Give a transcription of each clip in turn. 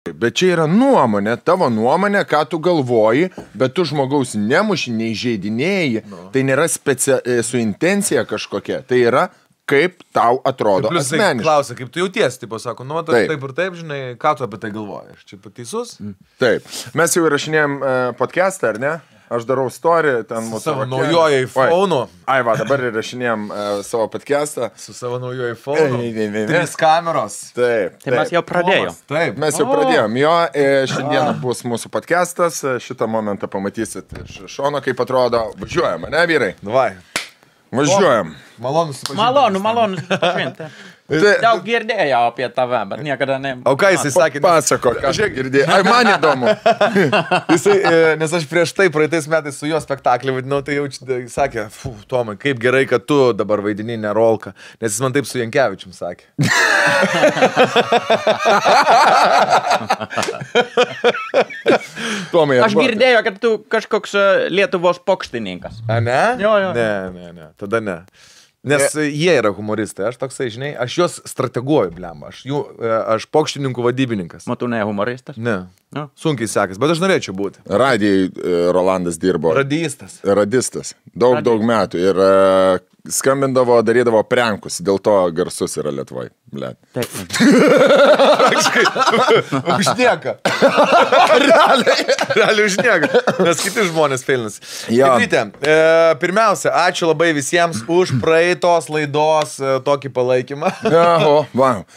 Bet čia yra nuomonė, tavo nuomonė, ką tu galvoji, bet tu žmogaus nemuši, neįžeidinėjai. Tai nėra su intencija kažkokia. Tai yra, kaip tau atrodo asmeniškai. Klausia, kaip tu jautiesi, tipo sako, nu, taip ir taip, žinai, ką tu apie tai galvoji. Aš čia pateisus? Taip. Mes jau įrašinėjom podcastą, ar ne? Aš darau story, ten mūsų... Savo naujojo iPhone'u. Ai, va, dabar įrašinėjom savo podcastą. Su savo naujojo iPhone'u. 3 kameros. Taip. Tai mes jau pradėjom. Taip. Mes jau pradėjom. Jo, šiandieną bus mūsų podcastas. Šitą momentą pamatysit iš šono, kaip atrodo. Važiuojam, ne, vyrai? Davai. Važiuojam. Malonu susipažinti. Malonu susipažinti. Daug girdėjau apie tave, bet niekada ne... O ką jisai sakė? Pasako, ką girdėjai. Ai, man įdomu. Jisai, nes aš prieš tai praeitais metais su juo spektaklį vaidinau, tai jau sakė, Tomai, kaip gerai, kad tu dabar vaidini ne Rolką, nes jis man taip su Jankevičium sakė. Tomai, Aš girdėjau, kad tu kažkoks Lietuvos pokštininkas. A, ne? Jo. Ne, tada ne. Nes jie yra humoristai, aš toksai, žinai, aš juos strateguoju, blem, aš pokštininkų vadybininkas. Tu ne humoristas? Ne, sunkiai sekas, bet aš norėčiau būti. Radijai Rolandas dirbo. Radistas. Daug metų. Ir skambindavo, darydavo prankus. Dėl to garsus yra Lietuvoje. Taip. Užnieka. Realiai užnieka. Nes kiti žmonės feilinasi. Tikrytė, pirmiausia, ačiū labai visiems už praeitos laidos tokį palaikymą.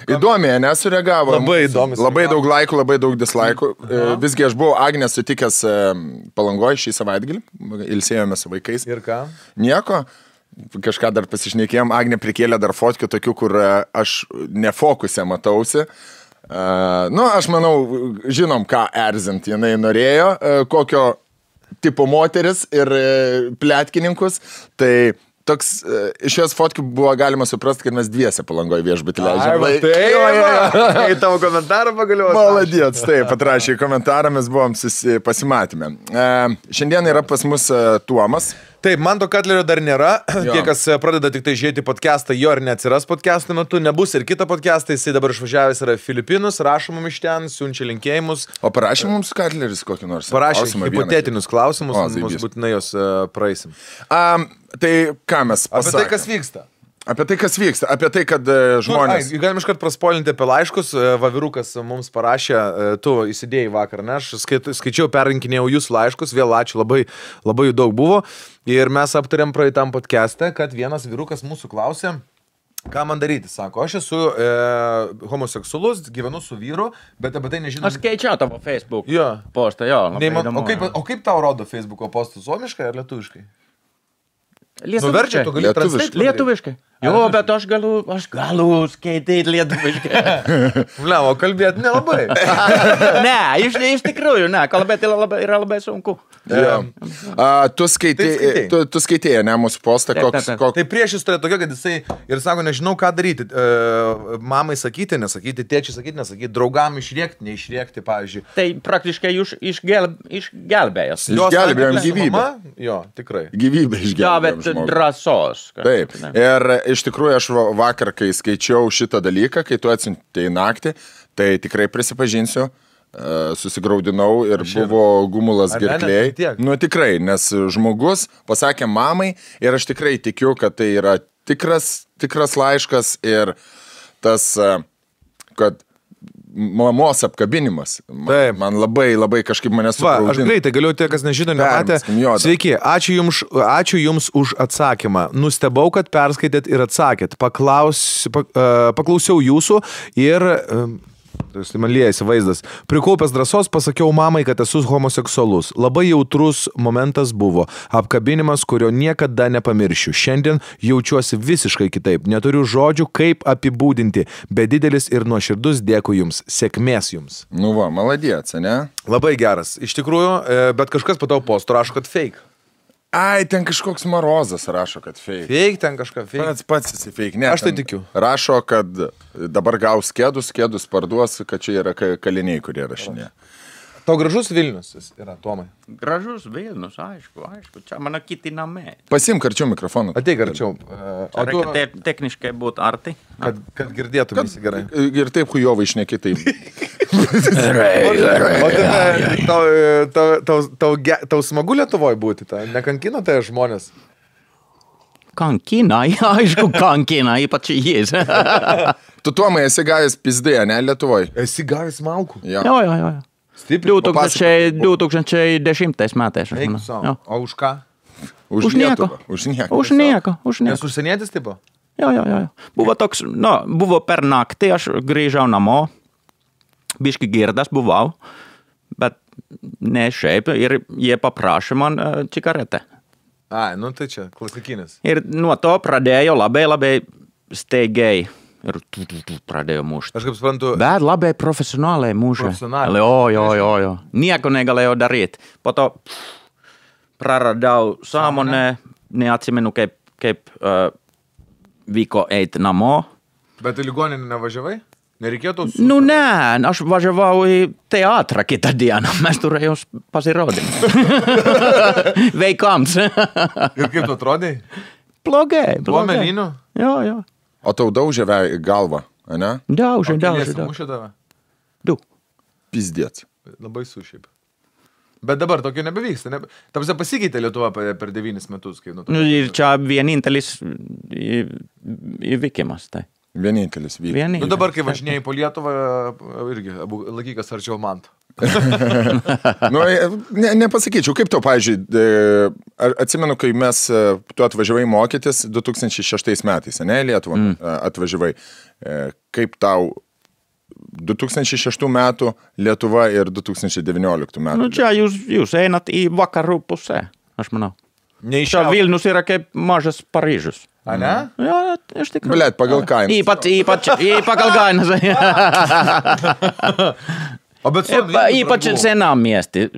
Įdomiai, nesureagavo. Labai įdomi. Labai daug laikų, labai daug dislaikų. Visgi aš buvau Agnę sutikęs Palangoje šį savaitgalį. Ilsėjome su vaikais. Ir ką? Nieko. Kažką dar pasišnekėjom, Agnė prikėlė dar fotkių tokių, kur aš nefokuse matausi. Aš manau, žinom, ką erzint jinai norėjo, kokio tipo moteris ir pletkininkus. Tai toks, iš jos fotkių buvo galima suprasti, kad mes dviese Palangoje viešbutį leidžiam. Į tavo komentarą pagaliau. Maladėts, taip, atrašė į komentarą, mes buvom pasimatymę. Šiandien yra pas mus Tuomas. Taip, Manto Katlerio dar nėra. Tie, kas pradeda tik tai žiūrėti podcastą, jo ir neatsiras podcast'o metu. Nebus ir kitą podcastą, jisai dabar išvažiavęs yra Filipinus, rašo mums iš ten, siunčia linkėjimus. O parašė mums Katleris kokį nors? Parašė hipotetinius klausimus, mums būtinai jos praeisim. Tai ką mes pasakėme? Apie tai, kas vyksta. Apie tai, kas vyksta, apie tai, kad žmonės... Galim iškart praspoilinti apie laiškus. Vavirukas mums parašė, tu įsidėjai vakar, ne? Aš skaičiau, perrinkinėjau jūsų laiškus, vėl ačiū, labai jų daug buvo. Ir mes aptarėm praeitam podcast'e, kad vienas vyrukas mūsų klausė, ką man daryti. Sako, aš esu homoseksualus, gyvenu su vyru, bet apie tai nežinau. Aš skaičiau tavo Facebook postą, jo. O kaip tau rodo Facebook'o postus, suomiškai ar lietuviškai? Lietuviškai. Lietuviškai. Jo, bet aš galiu skaityti lietuviškai. O kalbėti nelabai. Ne, iš tikrųjų, ne, kalbėti yra labai sunku. Tu skaitėjai, ne, mūsų postą, koks... Tai prieš jis turėjo tokia, kad jisai ir sako, nežinau, ką daryti. Mamai sakyti, nesakyti, tėčiai sakyti, nesakyti, draugam išrėkti, neišrėkti, pavyzdžiui. Tai praktiškai išgelbėjęs. Išgelbėjom gyvybę. Jo, tikrai. Gyvybę išgelbėjom žmogų. Drąsos. Taip. Ir iš tikrųjų aš vakar, kai skaičiau šitą dalyką, kai tu atsiuntei naktį, tai tikrai prisipažinsiu, susigraudinau ir buvo gumulas gerklėj. Nu tikrai, nes žmogus pasakė mamai ir aš tikrai tikiu, kad tai yra tikras laiškas ir tas, kad mamos apkabinimas. Man labai kažkaip mane supraudino. Aš greitai galiu, tie, kas nežino, nematė. Sveiki, ačiū jums už atsakymą. Nustebau, kad perskaitėt ir atsakėt. Paklausiau jūsų ir... Tai man liejasi vaizdas. Prikaupęs drąsos pasakiau mamai, kad esu homoseksualus. Labai jautrus momentas buvo. Apkabinimas, kurio niekada nepamiršiu. Šiandien jaučiuosi visiškai kitaip. Neturiu žodžių, kaip apibūdinti. Bet didelis ir nuoširdus dėkui jums. Sėkmės jums. Nu va, maladėts, ne? Labai geras. Iš tikrųjų, bet kažkas po tavo postų rašo, kad fake. Ai, ten kažkoks Marozas rašo, kad fake. Fake, ten kažką fake. Pats esi fake. Ne, aš tai tikiu. Rašo, kad dabar gaus kėdus parduos, kad čia yra kaliniai, kurie rašinė. Tau gražus Vilnius yra, Tomai? Gražus Vilnius, aišku. Čia mano kiti namai. Pasimk arčiau mikrofoną. Ateik arčiau. Reikia techniškai būti arti. Kad girdėtumėsi gerai. Ir taip hujovai šneki taip. Tau smagu Lietuvoje būti, nekankina tai žmonės? Kankina, aišku, kankina, ypač jis. Tu, Tomai, esi gavęs pizdėje, ne, Lietuvoje? Esi gavęs malkų? Jo. Stipriai. 2010 metais. O už ką? Už nieko. Už nieko. Nes užsienietis tipo? Jo. Buvo toks, buvo per naktį, aš grįžau namo, biški girdas buvau, bet ne šiaip, ir jie paprašė man cigaretę. Ai, tai čia klasikinis. Ir nuo to pradėjo labai staigiai. Ir pradėjo mušti. Aš kaip suprantu. Bet labai profesionaliai mušė. Jo. Nieko negalėjau daryti. Po to praradau sąmonę, neatsimenu kaip vyko eiti namo. Bet į ligoninę nevažiavai? Nereikėtų? Ne, aš važiavau į teatrą kitą dieną. Mes turėjau pasirodyti. Veikams. Ir kaip tu atrodai? Blogai. Buvo melinių? Jo. O tau daužė galvą, ne? Daužė. Mušė tave? 2. Pizdėts. Labai sušiaip. Bet dabar tokio nebevyksta. Tamsia pasikeitė Lietuva per 9 metus. Ir čia vienintelis įvykimas, tai. Vienintelis vyko. Dabar, kai važinėjai po Lietuvą, irgi laikykas arčiau man. Nepasakyčiau, kaip tau, pavyzdžiui, atsimenu, kai tu atvažiavai mokytis 2006 metais, ne, Lietuvą atvažiavai. Kaip tau 2006 metų Lietuva ir 2019 metų? Čia jūs einat į vakarų pusę, aš manau. Čia Vilnius yra kaip mažas Paryžius. A, ne? Jo, iš tikrųjų. Blet, pagal kainą. Ypač pagal kainą. Ypač senam miesti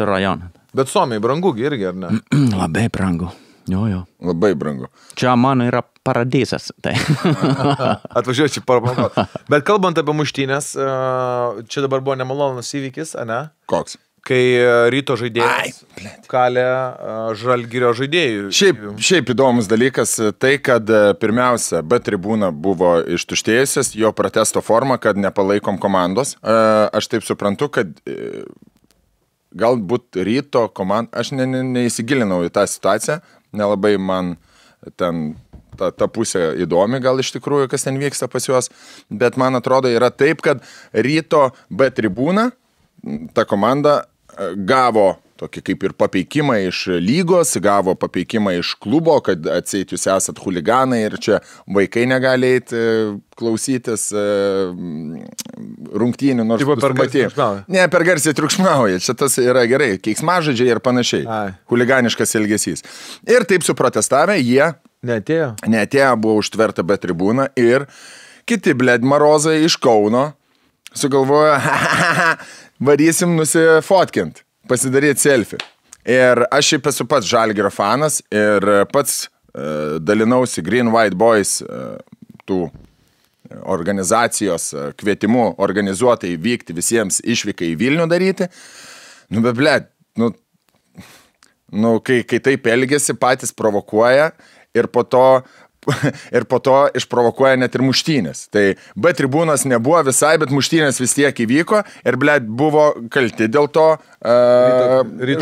rajoną. Bet Suomiai brangu irgi, ar ne? Labai brangu. Jo. Labai brangu. Čia mano yra paradisas. Tai. Atvažiuoju čia parapamokot. Bet kalbant apie muštynės, čia dabar buvo nemalonus įvykis, ne? Koks? Kai Ryto žaidėjas kalė Žalgirio žaidėjų. Šiaip įdomus dalykas tai, kad pirmiausia, B tribūna buvo ištuštėjusias, jo protesto forma, kad nepalaikom komandos. Aš taip suprantu, kad galbūt Ryto komanda, aš neįsigilinau į tą situaciją, nelabai man ten ta pusė įdomi gal iš tikrųjų, kas ten vyksta pas juos, bet man atrodo yra taip, kad Ryto B tribūna, ta komanda gavo tokį kaip ir papeikimą iš lygos, gavo papeikimą iš klubo, kad atseit jūs esat huliganai ir čia vaikai negali eiti klausytis rungtynių, nors per garsiai triukšmauja. Ne, per garsiai triukšmauja, čia tas yra gerai, keiksmažodžiai ir panašiai, huliganiškas elgesys. Ir taip suprotestavę, jie neatėjo, buvo užtverta B tribūna ir kiti marozai iš Kauno sugalvojo, varysim nusifotkint, pasidaryti selfie. Ir aš šiaip esu pats Žalgirio fanas ir pats dalinausi Green White Boys tų organizacijos kvietimu organizuotai vykti visiems išvykai į Vilnių daryti. Kai taip elgiasi, patys provokuoja ir po to išprovokuoja net ir muštynės. Tai B tribūnos nebuvo visai, bet muštynės vis tiek įvyko ir, buvo kalti dėl to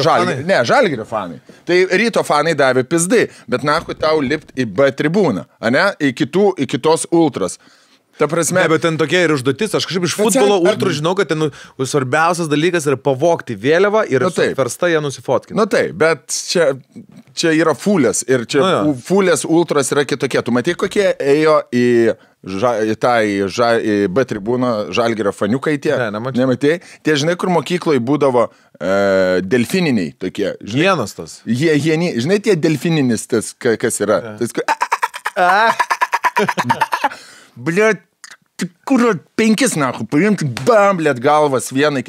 Žalgirio fanai. Tai Ryto fanai davė pizdai, bet nahui tau lipt į B tribūną, į kitos ultras. Ta prasme, bet ten tokia ir užduotis, aš kažkaip iš futbolo ultrų žinau, kad ten svarbiausias dalykas yra pavogti vėliavą ir versta ją nusifotkinti. Taip, bet čia yra fulės ir čia fulės ultras yra kitokie. Tu matai, kokie ėjo į B tribūną Žalgirio faniukai tie? Ne, nemačiau. Nematai? Tie, žinai, kur mokykloje būdavo delfininiai tokie. Hienos tas. Žinai, tie delfininis tas, kas yra. Tas, Blet, kur 5 nahu, paimti, bam, blėt galvas vienai,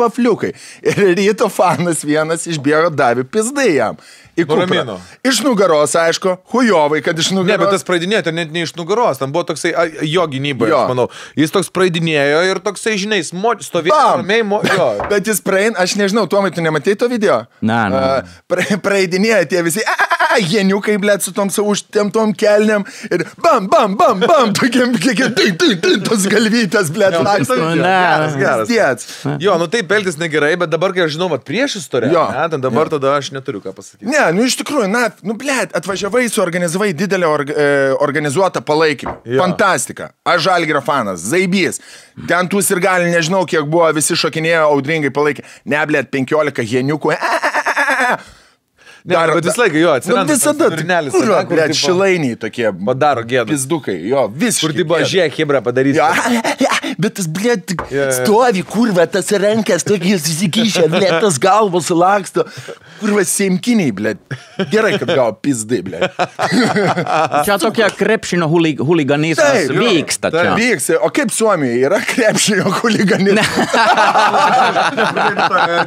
vafliukai. Ir ryto fanas vienas išbėgo, davė pizdai jam. Iš nugaros, aišku, hujovai, kad iš nugaros. Ne, bet tas praeidinėjo, net ne iš nugaros, ten buvo toksai jo gynyboje, aš manau. Jis toks praeidinėjo ir toksai, žinai, stovėjo ramiai, jo. Bet jis praein, aš nežinau, Tomai, tu nematei to video? Na. Praeidinėjo tie visi, jeniukai, blėt, su tom savo užtemtom kelniam ir bam, tokiam, tos galvytės, blėt, Geras. Jo, taip elgtis negerai, bet dabar, kai aš žinau, prieš istoriją, dabar tada aš neturiu ką pasakyti. Ne, iš tikrųjų, blėt, atvažiavai, suorganizavai didelę organizuotą palaikymą. Fantastika. Aš Žalgirio fanas, zaibys. Ten tų sirgalių, nežinau, kiek buvo, visi šokinėjo, audringai palaikė. Ne, blėt, 15 jeniukų. Bet vis laiką jo atsiranda. Visada, blėt, šilainiai tokie. Padaro gėdą. Pizdukai, jo, visiškai. Kur tipo žiek, hebra padarys. Bet tas, blėt, stovi, kurva, tas rankas, tokiais įsikišę, blėt, tas galvos laksto. Kurva, seimkiniai, blėt. Gerai, kad gavo pizdai, blėt. Čia tokia krepšinio huliganizmas vyksta čia. Vyksta. O kaip Suomijoje yra krepšinio huliganizmas?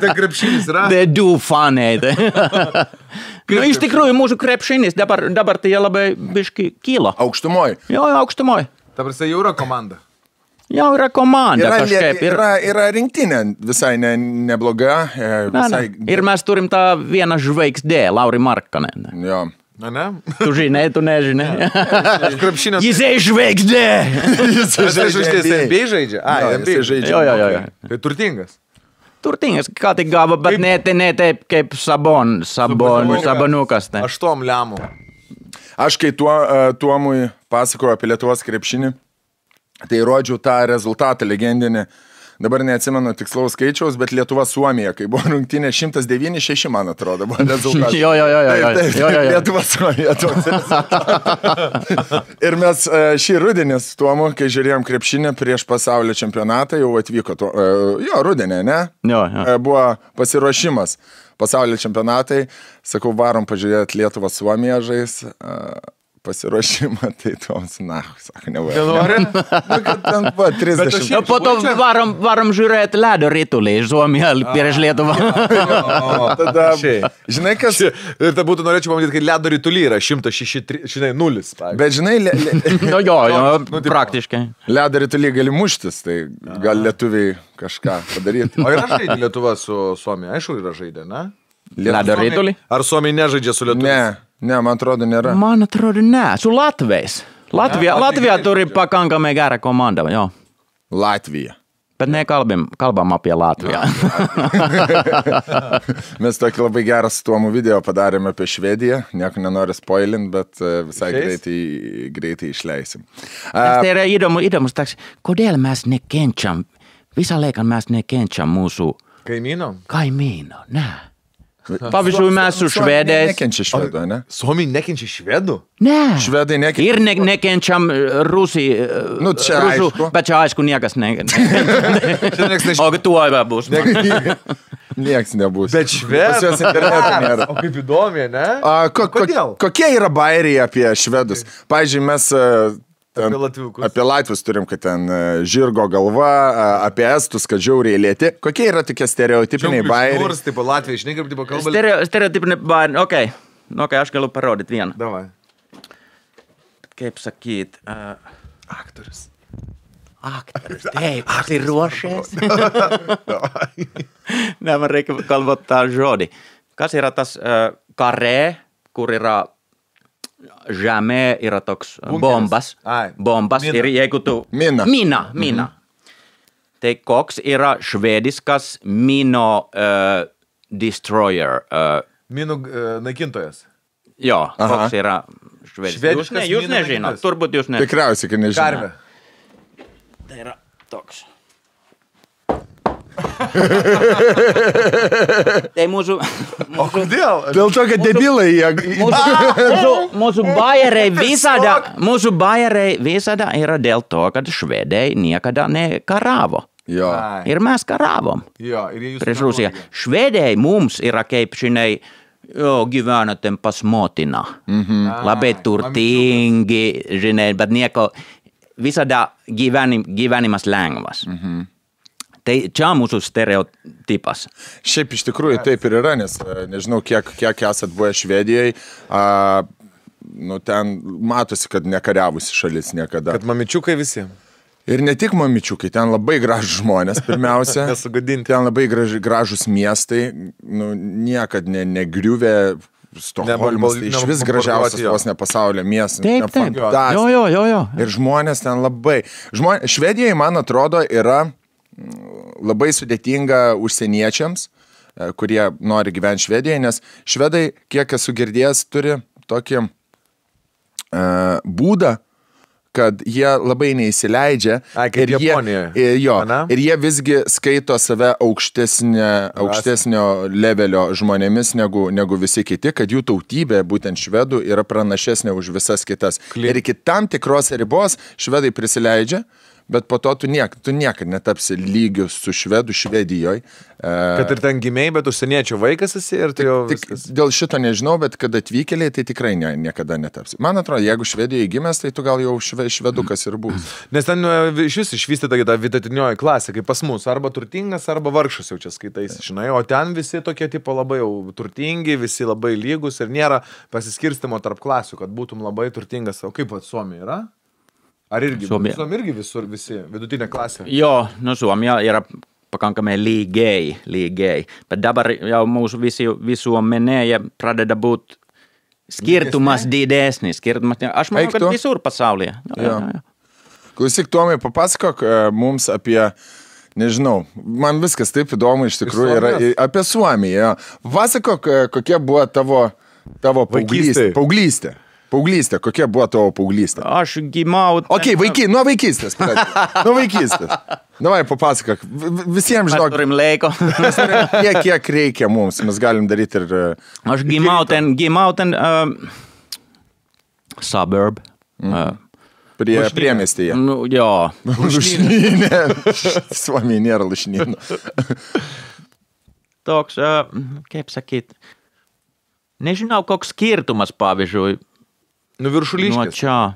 Tai krepšinis yra. They do funny. Iš tikrųjų, mūsų krepšinis dabar tai labai biški kyla. Aukštumoj. Jo, aukštumoj. Ta prasme, jau yra komanda. Jau yra komanda kažkaip. Yra rinktinė visai nebloga. Ir mes turim tą vieną žvaigždę, Lauri Markkanen. Jo. Ne? Tu žinai, tu nežinai. Jis žvaigždė. Jis žvaigždė. NBA žaidžia? NBA žaidžia. Jo. Tai turtingas. Turtingas, ką tik gavo, bet ne taip kaip Sabonukas. 8 lemų. Aš kai Tuomui pasakoju apie Lietuvos krepšinį, tai rodžiau tą rezultatą legendinį. Dabar neatsimenu tikslaus skaičiaus, bet Lietuva-Suomija, kai buvo rungtynė 109-6, man atrodo, buvo rezultatas. Jo. Lietuva-Suomija toks rezultatas. Ir mes šį rudenį su Tuomu, kai žiūrėjom krepšinį prieš pasaulio čempionatą, jau atvyko rudenį, ne? Jo. Buvo pasiruošimas pasaulio čempionatai. Sakau, varom pažiūrėti Lietuvą-Suomiją žais. Pasiruošimą, tai toms, sako, nevarom. Kad ten buvo 30. Po to varom žiūrėti ledo ritulį iš Suomiją prieš Lietuvą. Tada, žinai, kas... Ir tai būtų norėčiau pamatyti, kad ledo ritulį yra 106-0. Bet žinai... Jo, praktiškai. Ledo ritulį gali muštis, tai gal lietuviai kažką padaryti. O yra žaidė Lietuva su Suomija? Aišku, yra žaidė, ne? Ledo ritulį? Ar Suomija nežaidžia su Lietuva? Ne, man atrodo, nėra. Man atrodo, ne. Su Latvijais. Latvija turi pakankamai gerą komandą, jo. Latvija. Bet nekalbam apie Latviją. Mes tokį labai gerą su Tuomu video padarėme apie Švediją. Nieko nenoriu spoilint, bet visai greitai išleisim. Tai yra įdomus toks, kodėl mes nekenčiam, visą laiką mes nekenčiam mūsų kaimyno, ne. Pavyzdžiui, mes su švedais. Nekenčia švedų, ne? Suomiai nekenčia švedų? Ne. Švedai nekenčia. Ir nekenčiam rusų. Čia aišku. Bet čia aišku niekas nekenčia. O tuo bus. Nieks nebus. Bet švedų. Nėra. O kaip įdomi, ne? Kodėl? Kokie yra bairiai apie švedus? Pavyzdžiui, mes... Apie latvius turim, kad ten žirgo galva, apie estus, kad žiauriai lėti. Kokie yra tokie stereotipiniai bairiai? Nors, tipo, Latvija, žinai, kaip tipo kalba. Stereotipiniai bairiai, okei, aš galiu parodyti vieną. Davai. Kaip sakyt... Aktorius. Taip, esi ruošies? Ne, man reikia kalbot tą žodį. Kas yra tas karē, kur yra... Žemė yra toks bombas. Ir jeigu tu... Mina. Tai koks yra švediskas mino destroyer? Minų naikintojas. Jo, koks yra švediskas. Jūs nežinot, turbūt jūs nežinot. Tikriausiai, kad nežinot. Karvė. Tai yra toks. Tai mūsų... O kodėl? Dėl to, kad debilai jie... Mūsų bajeriai visada yra dėl to, kad švedai niekada nekaravo. Jo. Ir mes karavom. Jo, prieš Rusiją. Švedai mums yra kaip, žinai, gyvenate pas motiną. Labai turtingi, žinai, bet nieko... visada gyvenimas lengvas. Tai čia mūsų stereotipas. Šiaip iš tikrųjų taip ir yra, nes nežinau, kiek esat buvę Švedijoje, ten matosi, kad nekariavusi šalis niekada. Kad mamičiukai visi. Ir ne tik mamičiukai, ten labai gražus žmonės, pirmiausia. Ten labai gražus miestai, niekad negriuvė. Stokholmas, tai iš vis gražiausias vos ne pasaulio miestas. Taip. Jo. Ir žmonės ten labai. Švedijoje, man atrodo, yra labai sudėtinga užsieniečiams, kurie nori gyventi Švedijoje, nes švedai, kiek esu girdėjęs, turi tokį būdą, kad jie labai neįsileidžia ir jie visgi skaito save aukštesnio levelio žmonėmis negu visi kiti, kad jų tautybė, būtent švedų, yra pranašesnė už visas kitas. Ir iki tam tikros ribos švedai prisileidžia, bet po to tu niekad netapsi lygius su švedu Švedijoje. Kad ir ten gimėjai, bet užsieniečių vaikas esi ir tai jau viskas. Dėl šito nežinau, bet kad atvykėliai, tai tikrai niekada netapsi. Man atrodo, jeigu Švedijoje gimęs, tai tu gal jau švedukas ir bus. Nes ten iš vis išvystyta ta vidutinioji klasė, kaip pas mus, arba turtingas, arba vargšas jau čia skaitais, žinai, o ten visi tokie tipo labai jau turtingi, visi labai lygus ir nėra pasiskirstimo tarp klasių, kad būtum labai turtingas. O kaip Suomija yra? Ar irgi? Suomija irgi visur visi, vidutinė klasė? Jo, Suomija yra pakankamai lygiai. Bet dabar jau mūsų visuomenėje pradeda būt skirtumas didesnis. Aš manau, kad visur pasaulyje. Jo. Klausyk, Tomai, papasakok mums apie, nežinau, man viskas taip įdomu iš tikrųjų yra apie Suomiją. Pasakok, kokia buvo tavo paauglystė. Paauglystė, kokia buvo tavo paauglystė? Aš gimau... Nuo vaikystės. Davai, papasakok. Visiems žinok. Mes turim laiko. Kiek reikia mums, mes galim daryti ir... Aš gimau ten suburb. Priemiestyje. Jo. Lušnynė. Suomija nėra lušnynų. Toks, kaip sakyt, nežinau, koks skirtumas, pavyzdžiui, Viršuliškės. Nuo čia.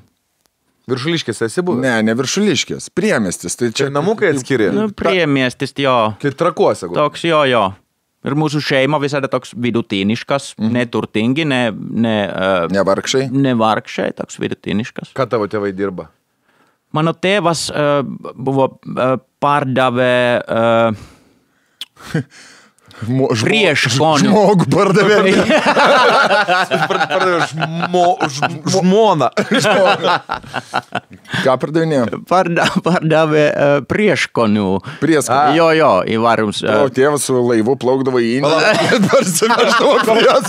Viršuliškės esi buvęs? Ne Viršuliškės. Priemiestis. Tai čia namukai atskiri? Priemiestis, jo. Tai Trakuose. Toks, jo. Ir mūsų šeima visada toks vidutiniškas, neturtingi, nevargšai. Nevargšai, toks vidutiniškas. Ką tavo tėvai dirba? Mano tėvas buvo pardavė... Prieškonių. Žmogų pardavė. Žmoną. Ką pardavinėjo? Pardavė prieškonių. Prieskonių. Jo, įvarums. O tėvas su laivu plaukdavo į Indiją.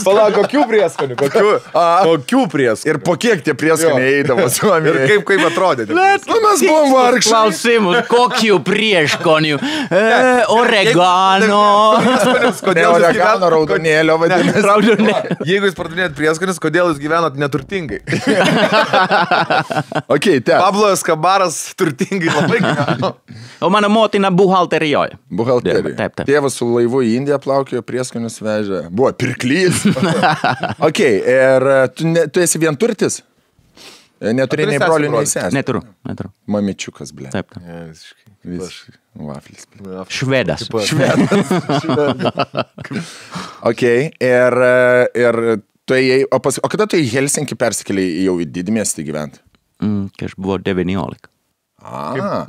Palauk, kokių prieskonių? Kokių prieskonių? Ir po kiek tie prieskoniai eidavo Suomijoje? Ir kaip atrodė? Mes buvom vargšai. Klausimus, kokių prieškonių? Oregano. Ne oregano, raudonėlio vadinasi. Jeigu jūs pardavinėjat prieskonis, kodėl jūs gyvenat neturtingai? Pablo Escobaras turtingai labai gyveno. O mano motina buhalterijoje. Taip. Tėvas su laivu į Indiją plaukėjo, prieskonius vežė. Buvo pirklys. Ir tu esi vienturtis? Neturi nei brolių, nei sesės? Neturiu. Mamičiukas, ble. Taip. Vaflis. Švedas. Ir tu ėjai, o kada tu į Helsinkį persikėlei jau į didmiestį gyventi? Kai aš buvau 19.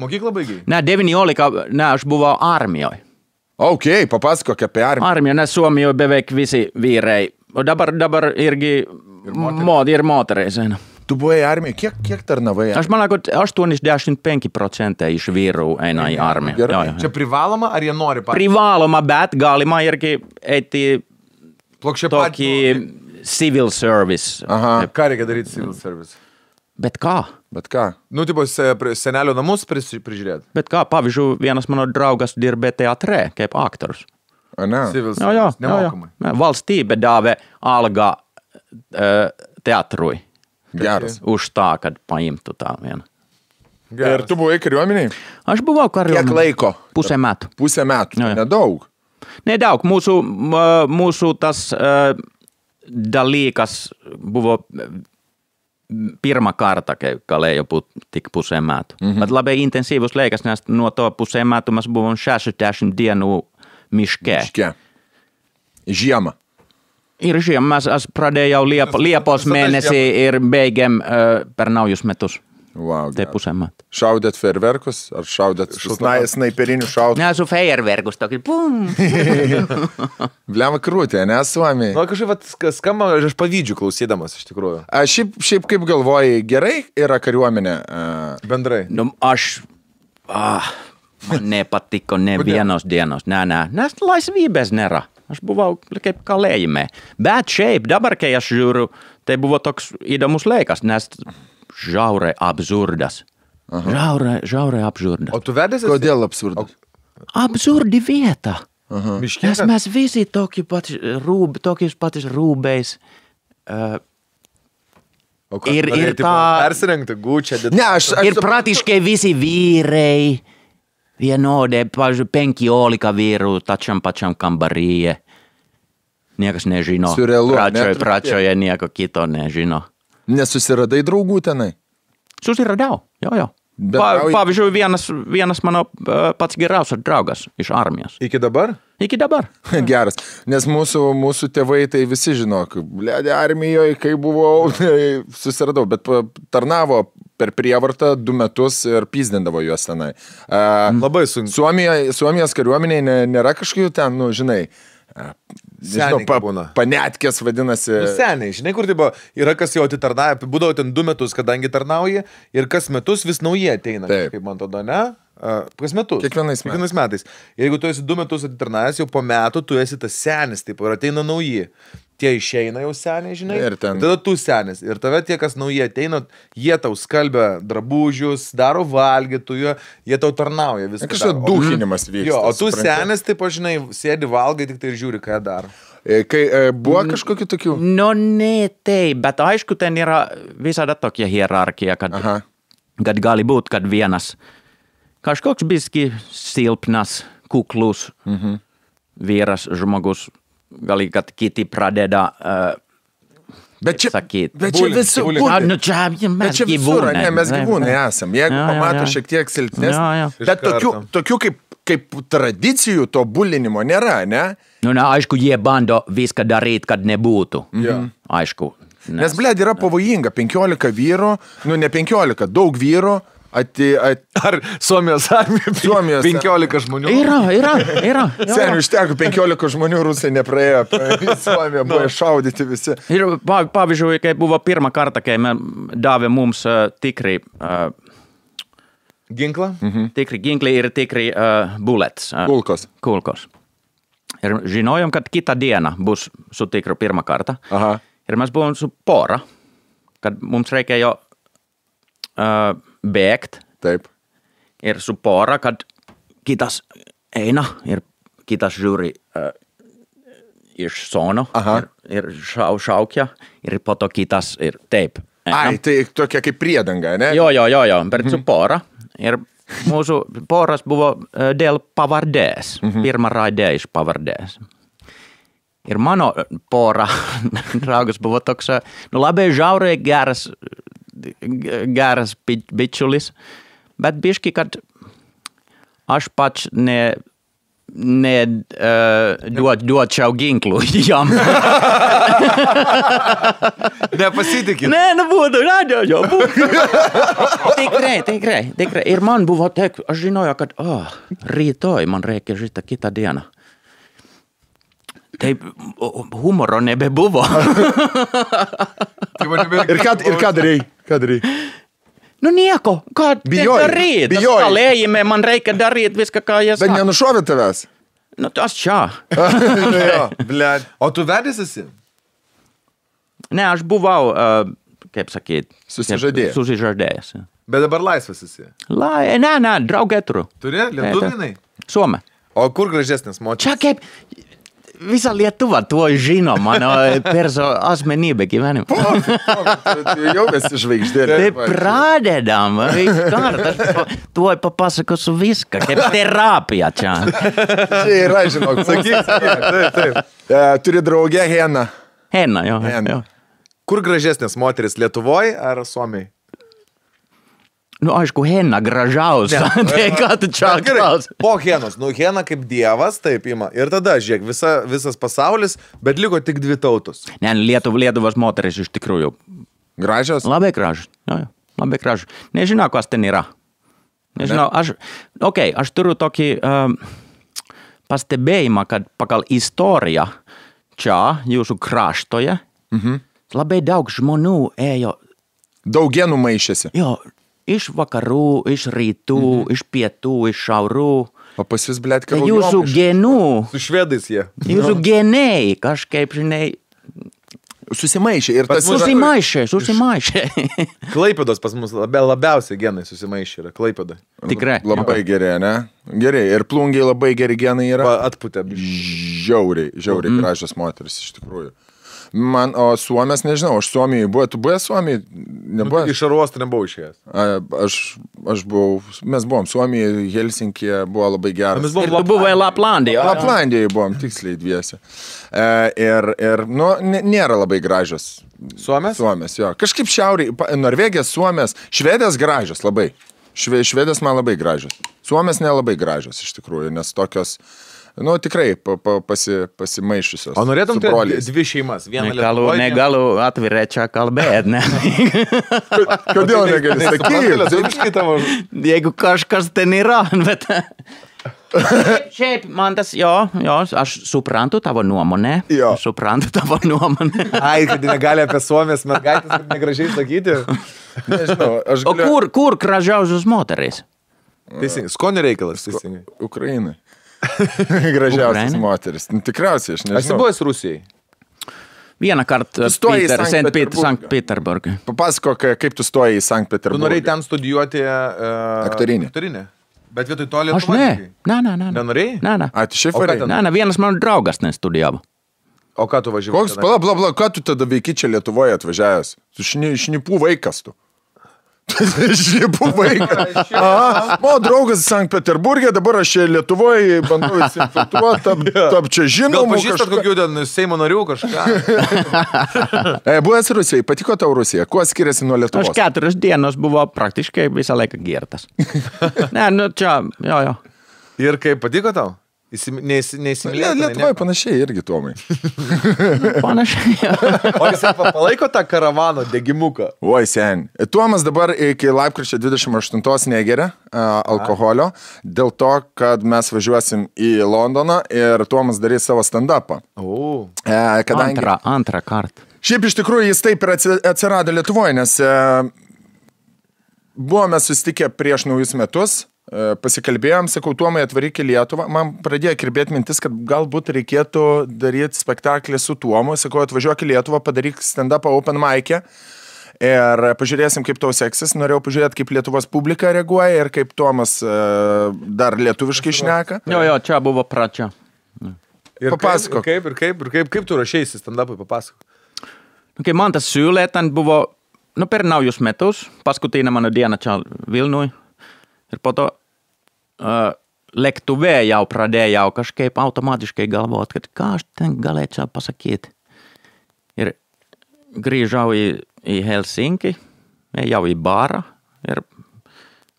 Mokyklą baigiai? Ne, 19, aš buvau armijoje. Papasakok apie armiją. Armijoje, nes Suomijoje beveik visi vyrai. O dabar irgi ir motereisena. Tu buvai armijoje, kiek tarnavai? Aš manau, kad 85% iš vyrų eina į armiją. Čia privaloma, ar jie nori patys? Privaloma, bet galima irgi eiti tokį civil service. Ką reikia daryti civil service? Bet ką? Tipo senelio namus prižiūrėti? Bet ką, pavyzdžiui, vienas mano draugas dirbė teatre, kaip aktorius. Civil service, nemokamai. Valstybė davė algą teatrui. Geras. Už tą, kad paimtų tą vieną. Ir tu buvai kariuomeniai? Aš buvau kariuomeniai. Kiek laiko? Pusę metų. Pusę metų, nedaug. Nedaug. Mūsų tas dalykas buvo pirma karta, kale jo tik puseen määtu. Bet labai intensyvus leikas näistä nuo to puseen määtumas buvon 60 dienų miške. Žiemą. Ir žiemą aš pradėjau Liepos mėnesį ir baigėm per naujus metus. Wow, tai pusę metų. Šaudėt fejerverkus ar šaudėt snaiperinių šaudų? Ne, su fejerverkus tokį pum. Bliam krūtė, ne, Suomiai. Nu, kažkaip skamba, aš pavydžiu klausydamas iš tikrųjų. Šiaip kaip galvoji, gerai yra kariuomenė? Bendrai. Nu, man nepatiko ne vienos dienos. Nes laisvybės nėra. Aš buvau kaip kalėjime. Bet šiaip, dabar kai aš žiūriu, tai buvo toks įdomus laikas, nes žiauriai absurdas. Žiauriai absurdas. O tu vedėsi? Kodėl absurdas? Absurdi vieta. Miškės? Nes mes visi tokius patys rūbais. Ir tą... Persirengti gūčią. Ir praktiškai visi vyrai. Vienodai, pavyzdžiui, 15 vyrų tačiam pačiam kambaryje. Niekas nežino. Surrealu, Pradžioje nieko kito nežino. Nesusiradai draugų tenai? Susiradau, jo. Pavyzdžiui, vienas mano pats geriausias draugas iš armijos. Iki dabar? Iki dabar. Geras, nes mūsų tėvai tai visi žino, blėdė armijoje, kai buvau, susiradau, bet tarnavo per prievartą 2 metus ir pyzdindavo juos tenai. Labai sunku. Suomijos kariuomeniai nėra kažkokių ten, nu, žinai, panetkės vadinasi. Nu, seniai, žinai, kur tai buvo, yra kas jau atitarnauja, būdavo ten 2 metus, kadangi tarnauja ir kas metus vis nauji ateina, kaip man tada, ne? Kas metus? Kiekvienais metais. Jeigu tu esi 2 metus atitarnavęs, jau po metų tu esi tas senis, taip, ir ateina nauji. Tie išeina jau seniai, žinai, ir tada tu senis. Ir tave tie, kas nauji ateina, jie tau skalbia drabužius, daro valgytų, jie tau tarnauja viską. Kažkas duhinimas vyksta. Jo, o tu senis, taip, žinai, sėdi valgai, tik tai ir žiūri, ką daro. Kai buvo kažkokių tokių? No ne taip, bet aišku, ten yra visada tokia hierarkia, kad gali būt, kad vienas kažkoks biski silpnas, kuklus vyras žmogus, gali, kad kiti pradeda sakyt. Bet čia visur, mes gyvūnai esam. Jeigu pamato šiek tiek silpnesnį, bet tokių kaip tradicijų to bulinimo nėra, ne? Nu, aišku, jie bando viską daryti, kad nebūtų. Aišku. Nes, blėd, yra pavojinga. 15 vyrų, nu ne 15, daug vyrų. Ar Suomijos armija 15 žmonių? Yra. Seniai, užteko 15 žmonių, rusai nepraėjo, Suomija buvo šaudyti visi. Ir pavyzdžiui, kai buvo pirmą kartą, kai davė mums tikrai ginklą? Tikrai ginklai ir tikrai bullets. Kulkos. Ir žinojom, kad kitą dieną bus su tikru pirmą kartą. Ir mes buvom su pora, kad mums reikia jo bėgt. Taip. Ir su pora, kad kitas eina ir kitas žiūri iš sono ir šaukia ir po to kitas ir taip. Ai, tai tokia kaip priedanga, ne? Jo, bet su pora. Ir mūsų poras buvo dėl pavardės. Pirma raidė iš pavardės. Ir mano pora draugas buvo toks, nu labai žiauriai geras bičiulis, bet biški, kad aš pats duočiau ginklų jam. Nepasitikit. Ne, nebūtų, Tikrai. Ir man buvo taip, aš žinoju, kad rytoj man reikia šitą kitą dieną. Taip, humoro nebebuvo. Ir ką darei? Nu nieko, ką daryti? Kalėjime man reikia daryti viską, ką jie sako. Bet nenušovė tavęs? Nu, tas čia. O tu vedęs esi? Ne, aš buvau, kaip sakyt, susižadėjęs. Bet dabar laisvas esi? Ne, draugė turiu. Turi? Lietuvinai? Suomė. O kur gražesnis moteris? Čia kaip... Visa Lietuva tuo žino mano asmenybę gyvenimą. Jau esi žvaigždė. Tai pradedam. Tuoj papasakosiu viską, kaip terapija čia. Čia yra, žinok. Sakyk. Taip. Turi draugę Heną. Henna, jo. Kur gražesnės moteris, Lietuvoje ar Suomiai? Nu, aišku, Henna gražiausia. Tai ką tu čia klaus? Po Henos. Nu, Hena kaip dievas, taip ima. Ir tada, žiūrėk, visas pasaulis, bet liko tik 2 tautos. Ne, Lietuvos moteris iš tikrųjų. Gražios? Labai gražios. Jo, labai gražios. Nežinau, kas ten yra. Nežinau, aš turiu tokį pastebėjimą, kad pagal istoriją čia, jūsų kraštoje, labai daug žmonių ėjo. Daug genų maišėsi. Jo, iš vakarų, iš rytų, iš pietų, iš šiaurų. O pas jūs, blėt, karų jūsų genų. Su švedais jie. Jūsų geniai kažkaip, žinai. Susimaišė. Ir tas susimaišė. Klaipėdos pas mus labiausiai genai susimaišė yra. Klaipėda. Tikrai. Labai geri, ne? Gerai. Ir plungiai labai geri genai yra. Atputė. Žiauriai gražios moteris, iš tikrųjų. Man, o Suomės, nežinau, aš Suomijai buvo, tu buvai Suomijai? Nebuvo? Iš aruostą nebuvau išėjęs. Aš buvau, mes buvom Suomijai, Helsinkije, buvo labai geras. Ir tu buvai Laplandijoje. Laplandijoje buvom, tiksliai dviese. Ir nėra labai gražios. Suomės? Suomės, jo. Kažkaip šiauriai, Norvegijas, Suomės, Švedės gražios labai. Švedės man labai gražios. Suomės nelabai gražios, iš tikrųjų, nes tokios... Nu, tikrai pasimaišusios. O norėtum turėti 2 šeimas? Negalu atvirai čia kalbėti, ne? Kodėl negali sakyti? Jeigu kažkas ten yra, bet... Šiaip, man tas, jo, aš suprantu tavo nuomonę. Suprantu tavo nuomonę. Ai, kad negali apie Suomės mergaitės negražiai sakyti. Nežinau, aš galiu... O kur gražiausios moterys? Teisingai, skonio reikalas, teisingai. Ukrainai. Gražiausias moteris. Tikriausiai, aš nežinau. Esi buvęs Rusijai? Vieną kartą Sankt Peterburgą. Papasakok, kaip tu stoji į Sankt Peterburgą. Tu norėjai ten studijuoti aktorinį. Bet vietoj to Lietuvą? Ne. Nenorėjai? Ne. A, tu šiaip varėjai? Ne, vienas mano draugas nestudijavo. O ką tu važiavai? Koks, bla, ką tu tada veiki čia Lietuvoje atvažiavęs? Tu šnipų vaikas tu. Šnipų vaikas. Mano draugas Sankt Peterburgė, dabar aš čia Lietuvoje bandau įsinfiltruoti, tap čia žinomų. Gal pažįstat kokių ten Seimo narių kažką? Buvęs Rusijai, patiko tau Rusija? Kuo skiriasi nuo Lietuvos? Aš 4 dienos buvo praktiškai visą laiką girtas. Ne, nu čia, jo. Ir kaip patiko tau? Neįsimylėtinai? Lietuvoje panašiai irgi, Tomai. Panašiai. O jisai palaiko tą karavano degimuką? Oi, sen. Tomas dabar iki lapkričio 28 negeria alkoholio, dėl to, kad mes važiuosim į Londoną ir Tomas darys savo stand-upą. Antrą kartą. Šiaip iš tikrųjų jis taip ir atsirado Lietuvoje, nes buvome susitikę prieš naujus metus. Pasikalbėjom, sakau, Tuomai atvaryk į Lietuvą, man pradėjo kirbėti mintis, kad galbūt reikėtų daryti spektaklį su Tuomu, sakau, atvažiuok į Lietuvą, padaryk stand-upą open mic'e ir pažiūrėsim, kaip tau seksis, norėjau pažiūrėti, kaip Lietuvos publika reaguoja ir kaip Tuomas dar lietuviškai šneka. Jo, čia buvo pradžia. Papasakok. Kaip tu rašeisi stand-upui, papasakok. Kai man tas siūlė, ten buvo, per naujus metus, paskutinė mano diena čia Vilniui ir po to lėktuvė jau pradėjau kažkaip automatiškai galvot, kad ką aš ten galėčiau pasakyti. Ir grįžau į Helsinki, ejau į barą ir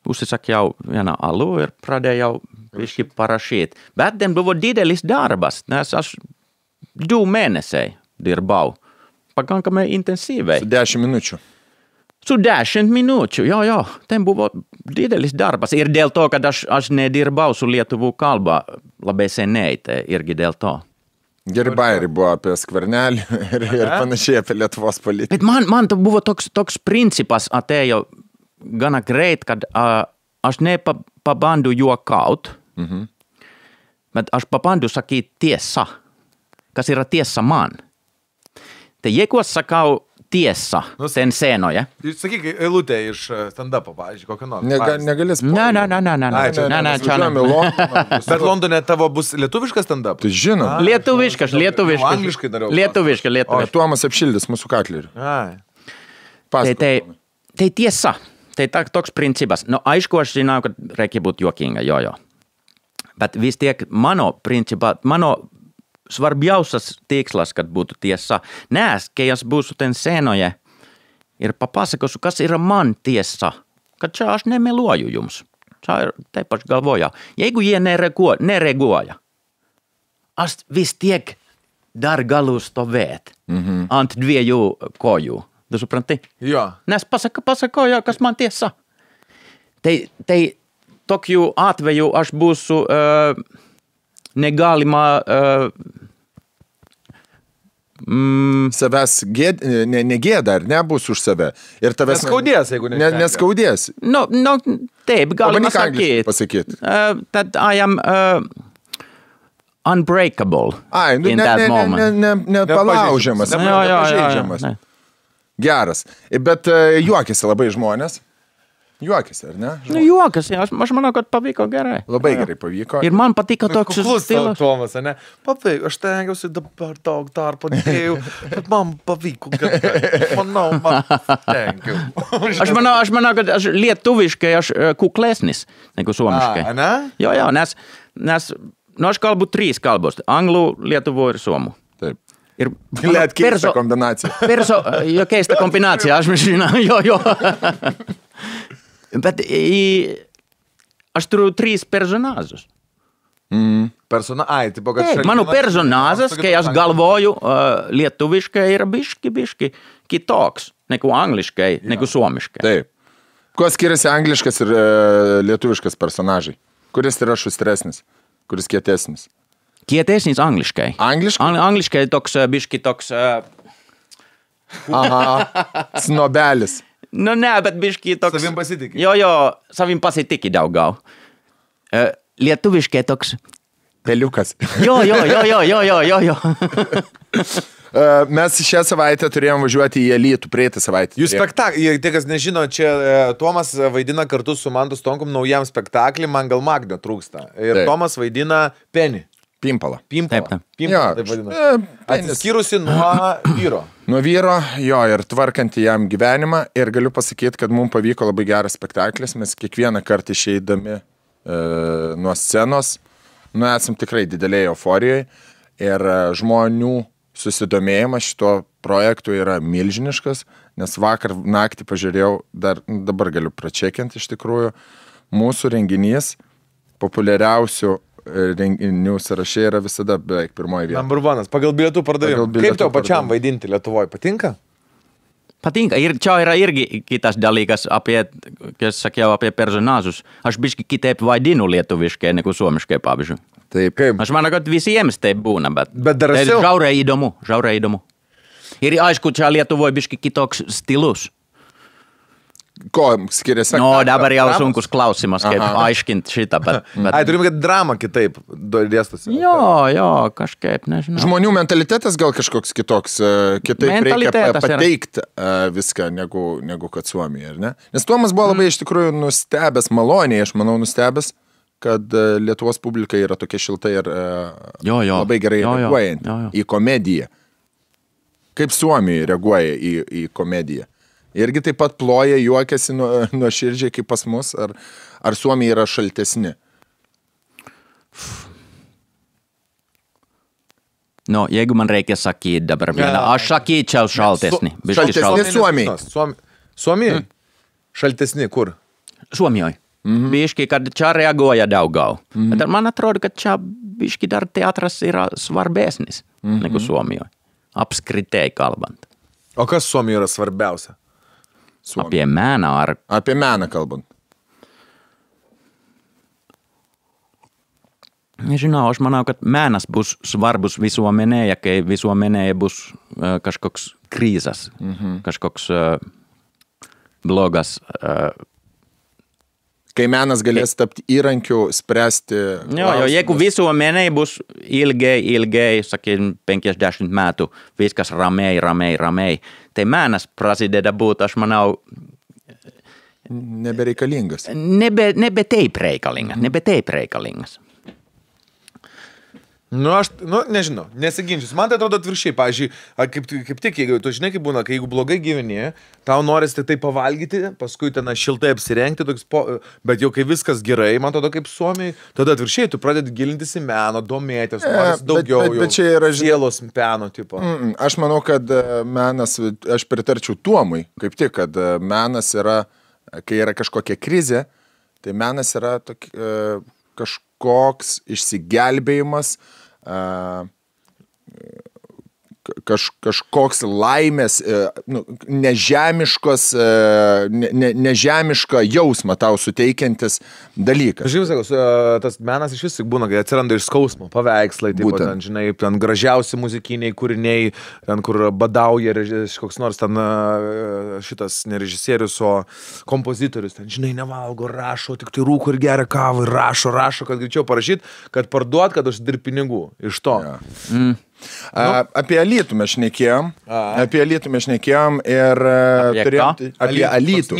užsisakiau vieną alų ir pradėjau biškį parašyti. Bet ten buvo didelis darbas, nes aš 2 mėnesiai dirbau, pakankamai intensyviai. Su 10 minučių. Su 10 minučių, jo. Ten buvo didelis darbas. Ir dėl to, kad aš nedirbau su lietuvų kalba labai seniai, tai irgi dėl to. Geri bairi buvo apie Skvernelį ir panašiai apie Lietuvos politiką. Bet man buvo toks principas atėjo gana greit, kad aš nepabandu juokaut, bet aš pabandu sakyti tiesą, kas yra tiesa man. Tai jeigu aš sakau tiesa, ten scenoje. Sakyk, eilutė iš stand-upo, pavyzdžiui, kokią nors. Negalės. Ne. Bet Londone tavo bus lietuviškas stand-up? Tai žinau. Lietuviškas. Angliškai dariau. Lietuviškas. O Tuomas apšildys mūsų katlerį. Tai tiesa. Tai toks principas. No aišku, aš žinau, kad reikia būti juokinga, jo. Bet vis tiek mano svarbiausias tikslas, kad būtų tiesa. Nes, kai aš būsiu ten scenoje ir papasakosiu, kas yra man tiesa, kad čia aš nemeluoju jums. Taip aš galvoju. Jeigu jie nereaguoja, aš vis tiek dar galu stovėt ant dviejų kojų. Tu supranti? Jo. Nes pasakoju, kas man tiesa. Tai tokiu atveju aš būsiu negalima savęs negėda, ar nebus už save. Ir tavęs neskaudės, jeigu neskaudės. No, taip, galima pasakyti. That I am unbreakable in that moment. Nepalaužiamas, nepažeidžiamas. Geras. Bet juokiasi labai žmonės. Juokiasi, ar ne? Juokiasi, aš manau, kad pavyko gerai. Labai gerai pavyko. Ir man patiko toks stilius. Tomas, ne? Pavyko, aš tengiausi dabar daug darbo dėjau, bet man pavyko gerai. Man tengiau. Aš manau, kad lietuviškai aš kuklesnis negu suomiškai. Ne? Jo, nes aš kalbu 3 kalbos. Anglų, lietuvo ir suomu. Taip. Ir keista kombinacija. Keista kombinacija, aš žinau, jo. Bet aš turiu 3 personažus. Mano personažas, kai aš galvoju lietuviškai, yra biški kitoks negu angliškai, negu suomiškai. Taip. Kuo skiriasi angliškas ir lietuviškas personažai? Kuris yra šustresnis? Kuris kietesnis? Kietesnis angliškai. Angliškai toks biški toks... Snobelis. No ne, bet biški toks... Savim pasitiki. Jo, savim pasitiki daugiau. Lietuviškai toks... Peliukas. Jo. Mes šią savaitę turėjom važiuoti į Alytų, praeitą savaitę. Jūs spektaklį, tie kas nežino, čia Tomas vaidina kartu su Mantu Stonkum naujam spektaklį, man gal Magnio trūksta. Ir taip. Tomas vaidina Penį. Pimpalą. Taip vadina. Atsiskyrusi nuo vyro. Nuo vyro, jo, ir tvarkanti jam gyvenimą. Ir galiu pasakyti, kad mums pavyko labai geras spektaklis. Mes kiekvieną kartą išeidami nuo scenos, esam tikrai didelėje euforijoje. Ir žmonių susidomėjimas šito projektu yra milžiniškas, nes vakar naktį pažiūrėjau, dabar galiu pračekinti iš tikrųjų, mūsų renginys populiariausių renginių sąraše yra visada beveik pirmoji vieta. Number one, pagal bilietų pardavimą. Kaip tau pačiam vaidinti Lietuvoje? Patinka? Patinka. Ir čia yra irgi kitas dalykas, kai sakiau apie personažus. Aš biški kitaip vaidinu lietuviškai negu suomiškai, pavyzdžiui. Taip, kaip? Aš manau, kad visiems taip būna, bet drąsiau. Žiauriai įdomu. Ir aišku, čia Lietuvoje biški kitoks stilus. Ko skiriasi? No, dabar jau sunkus klausimas, kaip aiškinti šitą, bet... Turim, kad drama kitaip dėstosi. Jo, kažkaip, nežinau. Žmonių mentalitetas gal kažkoks kitoks, kitaip reikia pateikti viską negu kad Suomija, ar ne? Nes Tomas buvo labai iš tikrųjų nustebęs, maloniai, aš manau, nustebęs, kad Lietuvos publika yra tokia šilta ir labai gerai reaguojant į komediją. Kaip Suomija reaguoja į komediją. Irgi taip pat ploja, juokiasi nuo širdžiai kaip pas mus, ar Suomija yra šaltesni? No, jeigu man reikia sakyti dabar vieną, aš sakyčiau šaltesni. Šaltesni Suomijai? Suomijai? Šaltesni kur? Suomijai. Biški, kad čia reaguoja daugiau. Bet man atrodo, kad čia biški dar teatras yra svarbesnis negu Suomijai. Apskritai kalbant. O kas Suomijai yra svarbiausia? Apie meną ar... Apie meną kalbant. Nežinau, aš manau, kad menas bus svarbus visuomenėje, kai visuomenėje bus kažkoks krizas, kažkoks blogas... Kai menas galės tapti įrankiu, spręsti... Jo, jeigu visuomenėje bus ilgai, sakykim, 50 metų, viskas ramiai, tai menas prasideda būt, aš manau... Nebereikalingas. Nebe taip reikalingas. Nežinau, nesiginčius. Man tai atrodo atviršiai, pavyzdžiui, kaip tik, jeigu tu žinai, kaip būna, kai jeigu blogai gyveni, tau norisi tik tai pavalgyti, paskui ten šiltai apsirengti, bet jau kai viskas gerai, man atrodo kaip Suomiai, tada atviršiai, tu pradedi gilintis į meną, domėtis, norisi daugiau bet čia yra sielos peno tipo. Aš manau, kad menas, aš pritarčiau Tuomui, kaip tik, kad menas yra, kai yra kažkokia krizė, tai menas yra kažkoks išsigelbėjimas, kažkoks laimės, nežemišką jausmą tau suteikiantis dalykas. Aš jau sakau, tas menas iš vis būna, kai atsiranda iš skausmo, paveikslai, taip, ten, žinai, ten gražiausi muzikiniai kūriniai, ten, kur badauja koks nors ten šitas ne režisierius, o kompozitorius, ten, žinai, nevalgo, rašo, tik tai rūko ir geria kavą, ir rašo, kad greičiau parašyt, kad parduot, kad užsidirb pinigų iš to. Ja. Apie Alytų mes šnekėjom. Ir apie Alytų.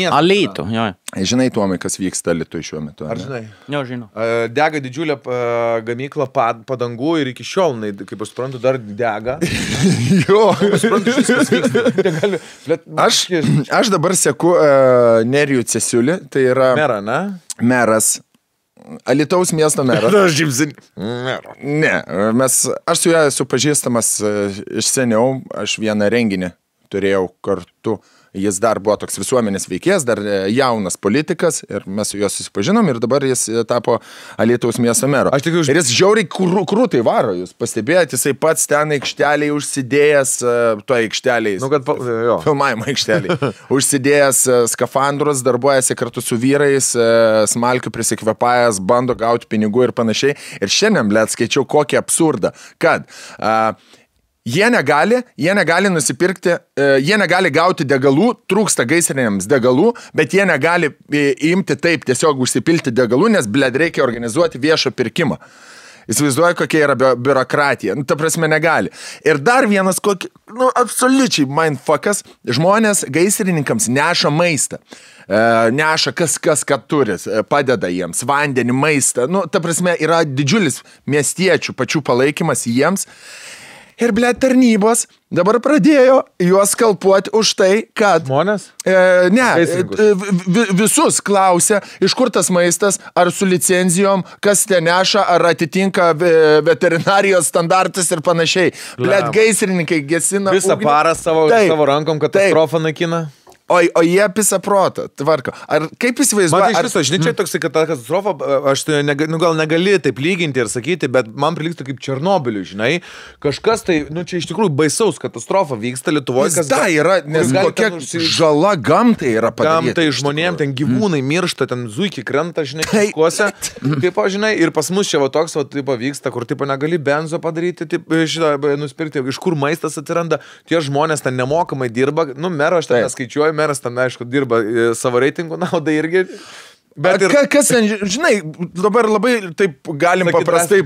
Alytų, jo. Žinai, Tuomai, kas vyksta Alytui šiuo metu? Ar žinai? Jo, žinau. Dega didžiulė gamykla padangų ir iki šiol, kaip aš suprantu, dar dega. Jo. Aš dabar seku Nerijų Cesiulį, tai yra... Merą, ne? Meras. Alytaus miesto meras. Ne, aš su juo esu pažįstamas iš seniau, aš vieną renginį turėjau kartu, jis dar buvo toks visuomenės veikėjas, dar jaunas politikas ir mes su juo susipažinom ir dabar jis tapo Alytaus miesto mero. Ir jis žiauriai krūtai varo, jūs pastebėjot, jisai pats ten aikšteliai užsidėjęs, toje aikšteliai, filmavimo aikšteliai, užsidėjęs skafandrus, darbuojasi kartu su vyrais, smalkių prisikvepajęs, bando gauti pinigų ir panašiai. Ir šiandien, blėt, skaičiau kokį absurdą, kad jie negali nusipirkti, jie negali gauti degalų, trūksta gaisriniams degalų, bet jie negali imti taip tiesiog užsipilti degalų, nes, blėd, reikia organizuoti viešą pirkimą. Įsivaizduoju, kokia yra biurokratija. Ta prasme, negali. Ir dar vienas, absoliučiai mindfuckas, žmonės gaisrininkams neša maistą. Neša kas ką turi, padeda jiems, vandenį, maistą. Ta prasme, yra didžiulis miestiečių pačių palaikymas jiems. Ir, blėt, tarnybos dabar pradėjo juos skalpuoti už tai, kad... Žmonės? Visus klausia, iš kur tas maistas, ar su licenzijom, kas ten neša, ar atitinka veterinarijos standartus ir panašiai. Blėt, gaisrininkai gesina... Visą parą savo rankom katastrofą naikina. O jie pisa protą, tvarko. Ar kaip įsivaizduoja? Man iš viso, žinai, čia toks, kad ta katastrofa, aš gal negali taip lyginti ir sakyti, bet man priliktų kaip Černobiliui, žinai. Kažkas tai, čia iš tikrųjų baisaus katastrofa vyksta Lietuvoje. Yra, nes kokia žala gamtai yra padaryta. Gamtai žmonėm, ten gyvūnai miršta, ten zuikiai krenta, žinai, kažkuose. Taip, žinai, ir pas mus čia toks, taip vyksta, kur taip negali benzo padaryti, nusipirkti, iš kur maistas atsiranda. Tie žmonės ten nemokamai dirba, mero aš ten neskaičiuoju. Meras ten, aišku, dirba savo reitingų naudai irgi. Bet kas ten, žinai, dabar labai taip galim paprastai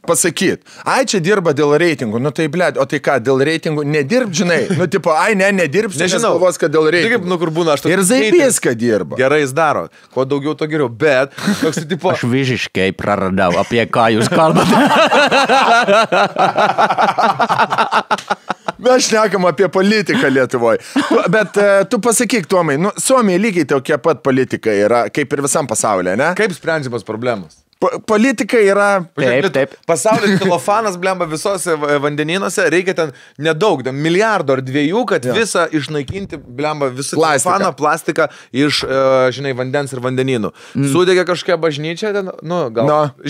pasakyti. Ai, čia dirba dėl reitingų. Tai, blėd, o tai ką, dėl reitingų nedirb, žinai? Nedirbs, nes galvos, kad dėl reitingų. Kur būna, ir Zaibys, kad dirba. Gerai jis daro. Kuo daugiau, to geriau. Bet, toks tipo... Aš visiškai praradau, apie ką jūs kalbate. Mes šnekam apie politiką Lietuvoje. Bet tu pasakyk, Tuomai, Suomija lygiai tokia pat politika yra, kaip ir visam pasaulyje, ne? Kaip sprendžiamas problemos? Politika yra... Taip. Pasaulis celofanas, blemba, visose vandenynuose, reikia ten nedaug, milijardo ar 2, kad visą išnaikinti, blemba, visą celofaną, plastiką iš, žinai, vandens ir vandenynų. Sudegė kažkokia bažnyčia, ten,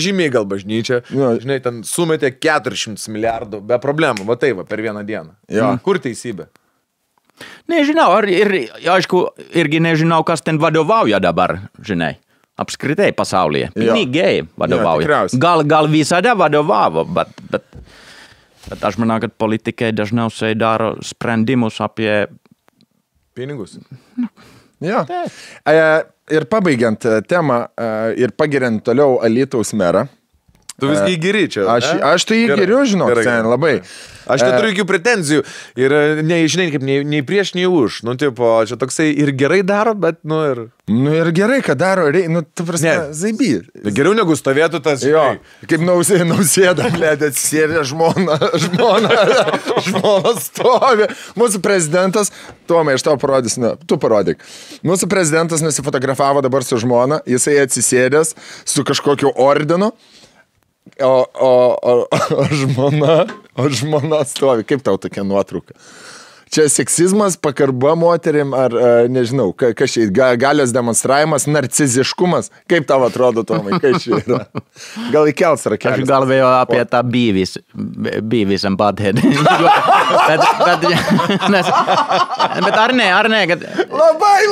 žymiai gal bažnyčia, žinai, ten sumetė 400 milijardų be problemų, va tai va, per vieną dieną. Kur teisybė? Nežinau, ir aišku, irgi nežinau, kas ten vadovauja dabar, žinai. Apskritai pasaulyje. Pinigai vadovauja. Gal visada vadovavo, bet aš manau, kad politikai dažniausiai daro sprendimus apie... Pinigus. Jo. Ir pabaigiant temą ir pagiriant toliau Alytaus merą, Tu visgi geri čia. Aš tai jį geriu, žinok, ten labai. Aš neturiu jokių pretenzijų ir žinai, kaip nei prieš, nei už. Nu, tipo, čia toksai ir gerai daro, bet, ir... Nu, ir gerai, kad daro, tu prasme, zaiby. Geriau negu stovėtų tas, jo, kaip nausėda, blėdė, atsisėdė žmona stovi. Mūsų prezidentas, Tomai, aš tau parodysiu, tu parodyk. Mūsų prezidentas nusifotografavo dabar su žmona, jisai atsisėdęs su kažkokiu ordinu. O žmona stovi. Kaip tau tokia nuotrauka? Čia seksizmas, pakarba moterim, ar nežinau, kas čia, galios demonstravimas, narciziškumas. Kaip tau atrodo, Tomai, kas čia yra? Gal įkels rakelis? Aš galvėjau apie tą Beavis and Butthead. Bet ar ne, kad...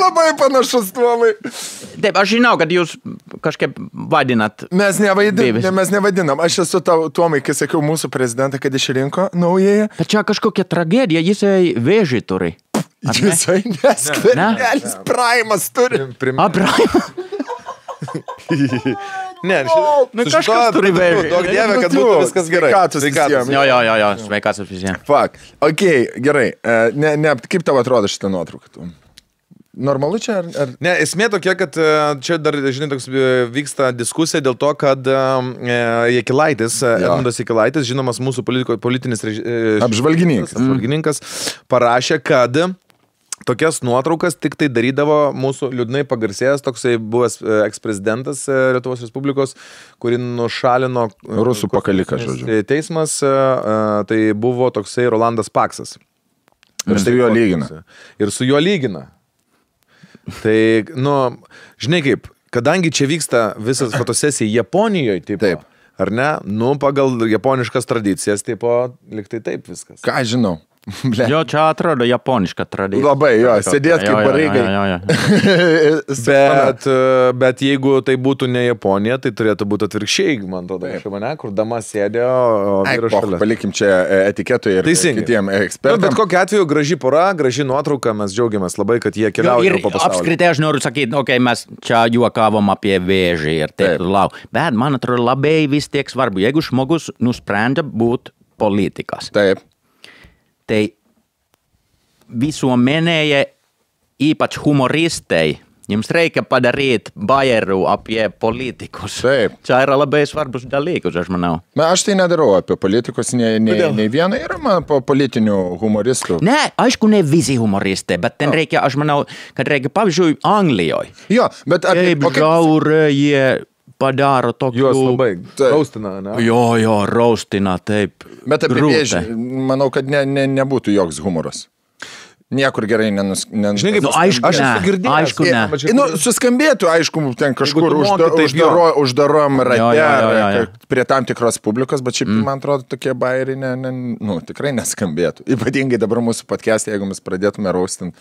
Labai panašus, Tomai. Taip, aš žinau, kad jūs kažkaip vadinat. Mes nevadinam. Aš esu Tomai, kai sakiau mūsų prezidentą, kad išrinko naujai. Bet čia kažkokia tragedija, jisai vėžį turi. Jisai neskvernelis, Praimas turi. Praimas? Ne, kažkas turi vėžį. Daug dievė, kad būtų viskas gerai. Sveikatos. Jo, sveikatos visiems. Fuck. Ok, gerai. Kaip tau atrodo šitą nuotrauką? Normalu čia ar... Ne, esmė tokia, kad čia dar, žinai, toks vyksta diskusija dėl to, kad Jakilaitis, Edmundas Jakilaitis, žinomas mūsų politinis apžvalgininkas, parašė, kad tokias nuotraukas tik tai darydavo mūsų liūdnai pagarsėjęs toksai buvęs eksprezidentas Lietuvos Respublikos, kurį nušalino rusų pakaliką, žodžiu. Teismas, tai buvo toksai Rolandas Paksas. Ir su juo lygina. Ir su juo lygina. Tai, žinai kaip, kadangi čia vyksta visas fotosesija Japonijoje, taip, ar ne, pagal japoniškas tradicijas, liktai taip viskas. Ką žinau? Jo, čia atrodo japoniška tradicija. Labai, jo, sėdėt kaip pareigai. Bet jeigu tai būtų ne Japonija, tai turėtų būti atvirkščiai, man atrodo, kur dama sėdė, o vyras šalia. Palikim čia etiketui ir kitiem ekspertam. Bet kokiu atveju graži pora, graži nuotrauka, mes džiaugiamės labai, kad jie keliauja po pasaulį. Apskritai aš noriu sakyti, mes čia juokavom apie vėžį ir taip lau. Bet man atrodo labai vis tiek svarbu, jeigu žmogus nusprendžia būti politikas. Taip. Tai visuomenėje, ypač humoristei, jums reikia padaryti bajerų apie politikus. Taip. Čia yra labai svarbus dalykus, aš manau. Aš tai nedarau apie politikus, nei vieną yra man po politinių humoristų. Ne, aišku, ne visi humoristai, bet ten reikia, aš manau, kad reikia, pavyzdžiui, Anglijoje. Jo, bet... Kaip žiaurė jie... padaro tokių... Juos labai raustina, ne? Jo, raustina, taip. Bet apie vėžį, manau, kad nebūtų joks humoras. Niekur gerai Žinai, kaip, aišku, ne. Suskambėtų, aišku, ten kažkur uždarom rate, prie tam tikros publikos, bet šiaip, man atrodo, tokie bairiai tikrai neskambėtų. Ypatingai dabar mūsų podcast'e, jeigu mes pradėtume raustinti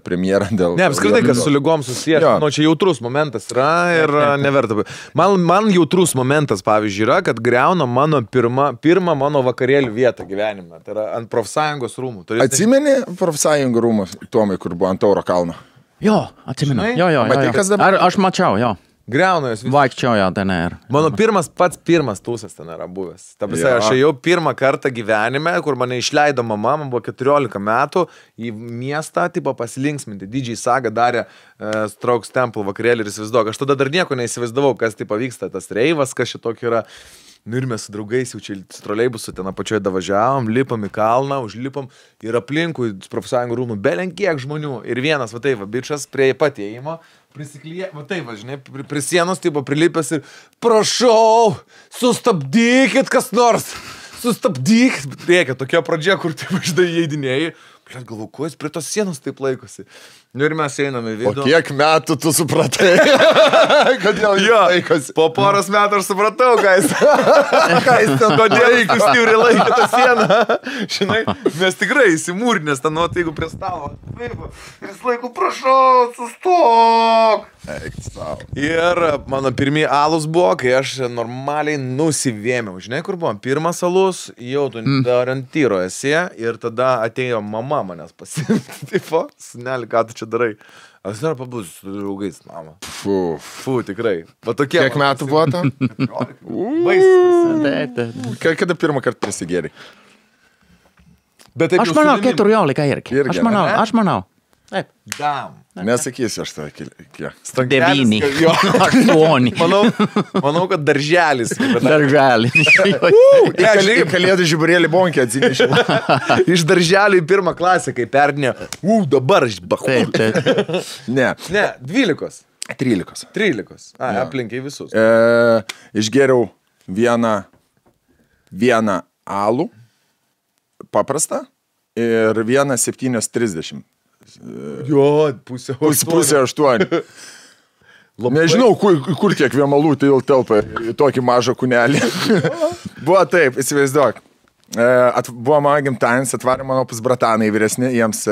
premjerą dėl... Ne, apskritai, kas su lygom susijęs. Čia jautrus momentas yra ir neverta. Man jautrus momentas, pavyzdžiui, yra, kad griauna mano pirmą mano vakarėlių vietą gyvenime. Tai yra ant profsąjungos rūmų. Atsimeni profsąjungų rūmus, Tomai, kur buvo ant Tauro kalno? Jo, atsimenu. Jo. Aš mačiau, jo. Griauna jos. Vaikščiojo ten ir. Mano pats pirmas tūsas ten yra buvęs. Ta prasme, aš ėjau pirmą kartą gyvenime, kur mane išleido mama, man buvo 14 metų, į miestą, pasilinksminti. DJ Saga darė Strokes Temple vakarėlį ir įsivaizduok. Aš tada dar nieko neįsivaizdavau, kas vyksta, tas reivas, kas šitokį yra. Ir mes su draugais jau čia troleibusu ten apačioje davažiavom, lipam į kalną, užlipam ir aplinkui profsąjungų rūmų belenkiek žmonių. Ir vienas, bičas prie pat įėjimo, prisiklyja, žinai, prie sienos, prilipęs ir prašau, sustabdykit kas nors, sustabdykit. Reikia tokia pradžia, kur žinai, įeidinėjai. Galvoju, kuo jis prie tos sienos taip laikosi. Ir mes einame į vidų. O kiek metų tu supratai? Kodėl jis laikosi? Po poros metų aš supratau, ką jis ten kodėl jis stipriai laikė tą sieną. Žinai, mes tikrai įsimūrinės ten, jeigu prie stalo. Ir jis laiko, prašau, sustok. Ir mano pirmieji alus buvo, kai aš normaliai nusivėmiau. Žinai, kur buvo? Pirmas alus, jau tu orientyro esi ir tada atėjo mama manęs pasimti. Tipo, seneli, ką tu čia darai? Aš dar pabūsiu su draugais, mama. Fu, tikrai. Va tokie. Kiek metų buvo to? Kada pirmą kartą prisigėrė? Aš manau, 14 irgi. Aš manau. Taip. Dam. Nesakysiu aš tą kiek. 9. 8. Manau, kad darželis. Darželis. Į kalėdų žiburėlį bonkį atsinešė. Iš darželio į pirmą klasę, kai perdinė. Dabar aš bahu. Ne. Ne, 12. 13. 13. Aplinkiai visus. Išgėriau vieną alų, paprastą, ir vieną 7:30. Jo, pusė 8. Nežinau, kur tiek vėmalų telpa į tokį mažą kūnelį. Buvo taip, įsivaizduok. Buvo mano gimtadienis, atvarė mano pusbratanai vyresni, jiems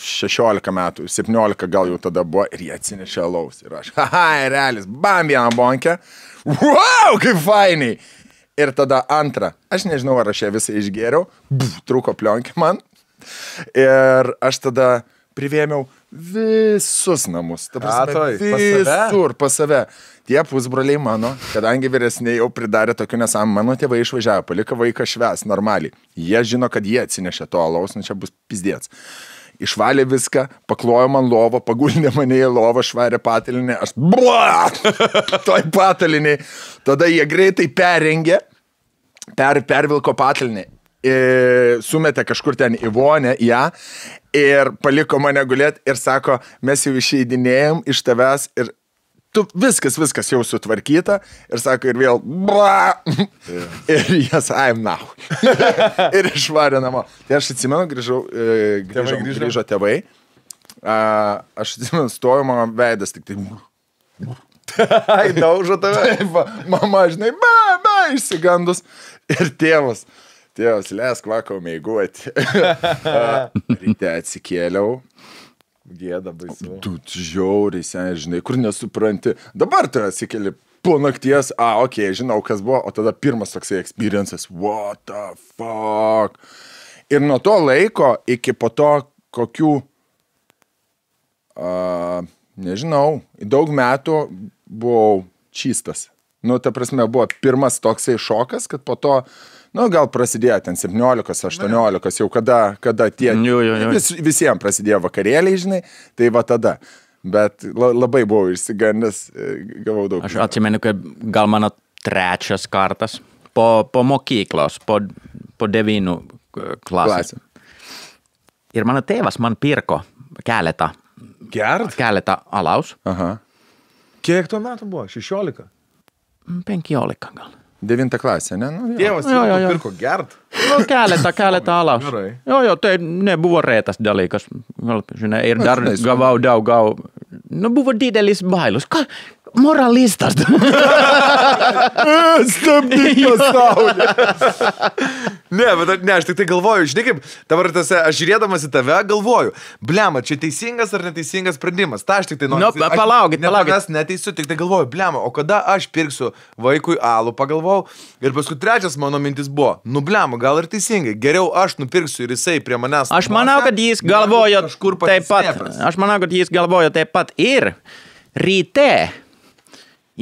16 metų, 17 gal jau tada buvo ir jie atsinešė alaus. Ir aš, realis, bam, vieną bonkę. Wow, kaip fainiai. Ir tada antrą, aš nežinau, ar aš ją visą išgėriau, trūko plionkė man. Ir aš tada privėmiau visus namus. Visur pas save. Tie pusbroliai mano, kadangi vyresniai jau pridarė tokių nesąmonių, mano tėvai išvažiavo, palika vaiką švęs normaliai. Jie žino, kad jie atsinešė to alaus, čia bus pizdėts. Išvalė viską, paklojo man lovą, paguldė mane į lovą, švarė patalinį, aš toj pataliniai. Tada jie greitai perrengė, pervilko patalinį. Sumetė kažkur ten į vonę ją ir paliko mane gulėti ir sako, mes jau išeidinėjom iš tavęs ir tu viskas jau sutvarkyta ir sako ir vėl ir jas I'm now ir išvarė namo. Tai aš atsimenu, grįžo tėvai, aš atsimenu, stoju, mano veidas tik tai daužo tave. Mama, žinai, išsigandus ir tėvas, leisk vakau meiguoti. Ryte atsikėliau. Gėda baisu. Tu žiauriai, žinai, kur nesupranti. Dabar tu atsikėli po nakties, žinau, kas buvo, o tada pirmas toksai experiences. What the fuck? Ir nuo to laiko iki po to kokių, nežinau, daug metų buvau čystas. Ta prasme, buvo pirmas toksai šokas, kad po to gal prasidėjo ten 17, 18, jau kada tie visiems prasidėjo vakarėliai, žinai, tai va tada. Bet labai buvau išsigandęs, gavau daug. Aš atsimenu, kad gal mano trečias kartas po mokyklos, po 9 klasės. Ir mano tėvas man pirko keletą alaus. Aha. Kiek tuo metu buvo? 16? 15 gal. 9 klasė, ne? Tėvas pirko gert? Keletą alaus. Jo, tai nebuvo retas dalykas. Žinai, ir dar gavau daug. Buvo didelis bailus. Moralistas. Stabdyk pasaulį. Ne, aš tik tai galvoju, žinai kaip, dabar aš žiūrėdamas į tave galvoju, blema, čia teisingas ar neteisingas sprendimas. Ta aš tik tai noriu. Palaukit. Aš neteisiu, tik tai galvoju, blema, o kada aš pirksiu vaikui alų, pagalvojau, ir paskui trečias mano mintis buvo, blema, gal ir teisingai, geriau aš nupirksiu ir jisai prie manęs. Aš manau, kad jis galvojo taip pat. Aš manau, kad jis galvojo taip pat ir ryte.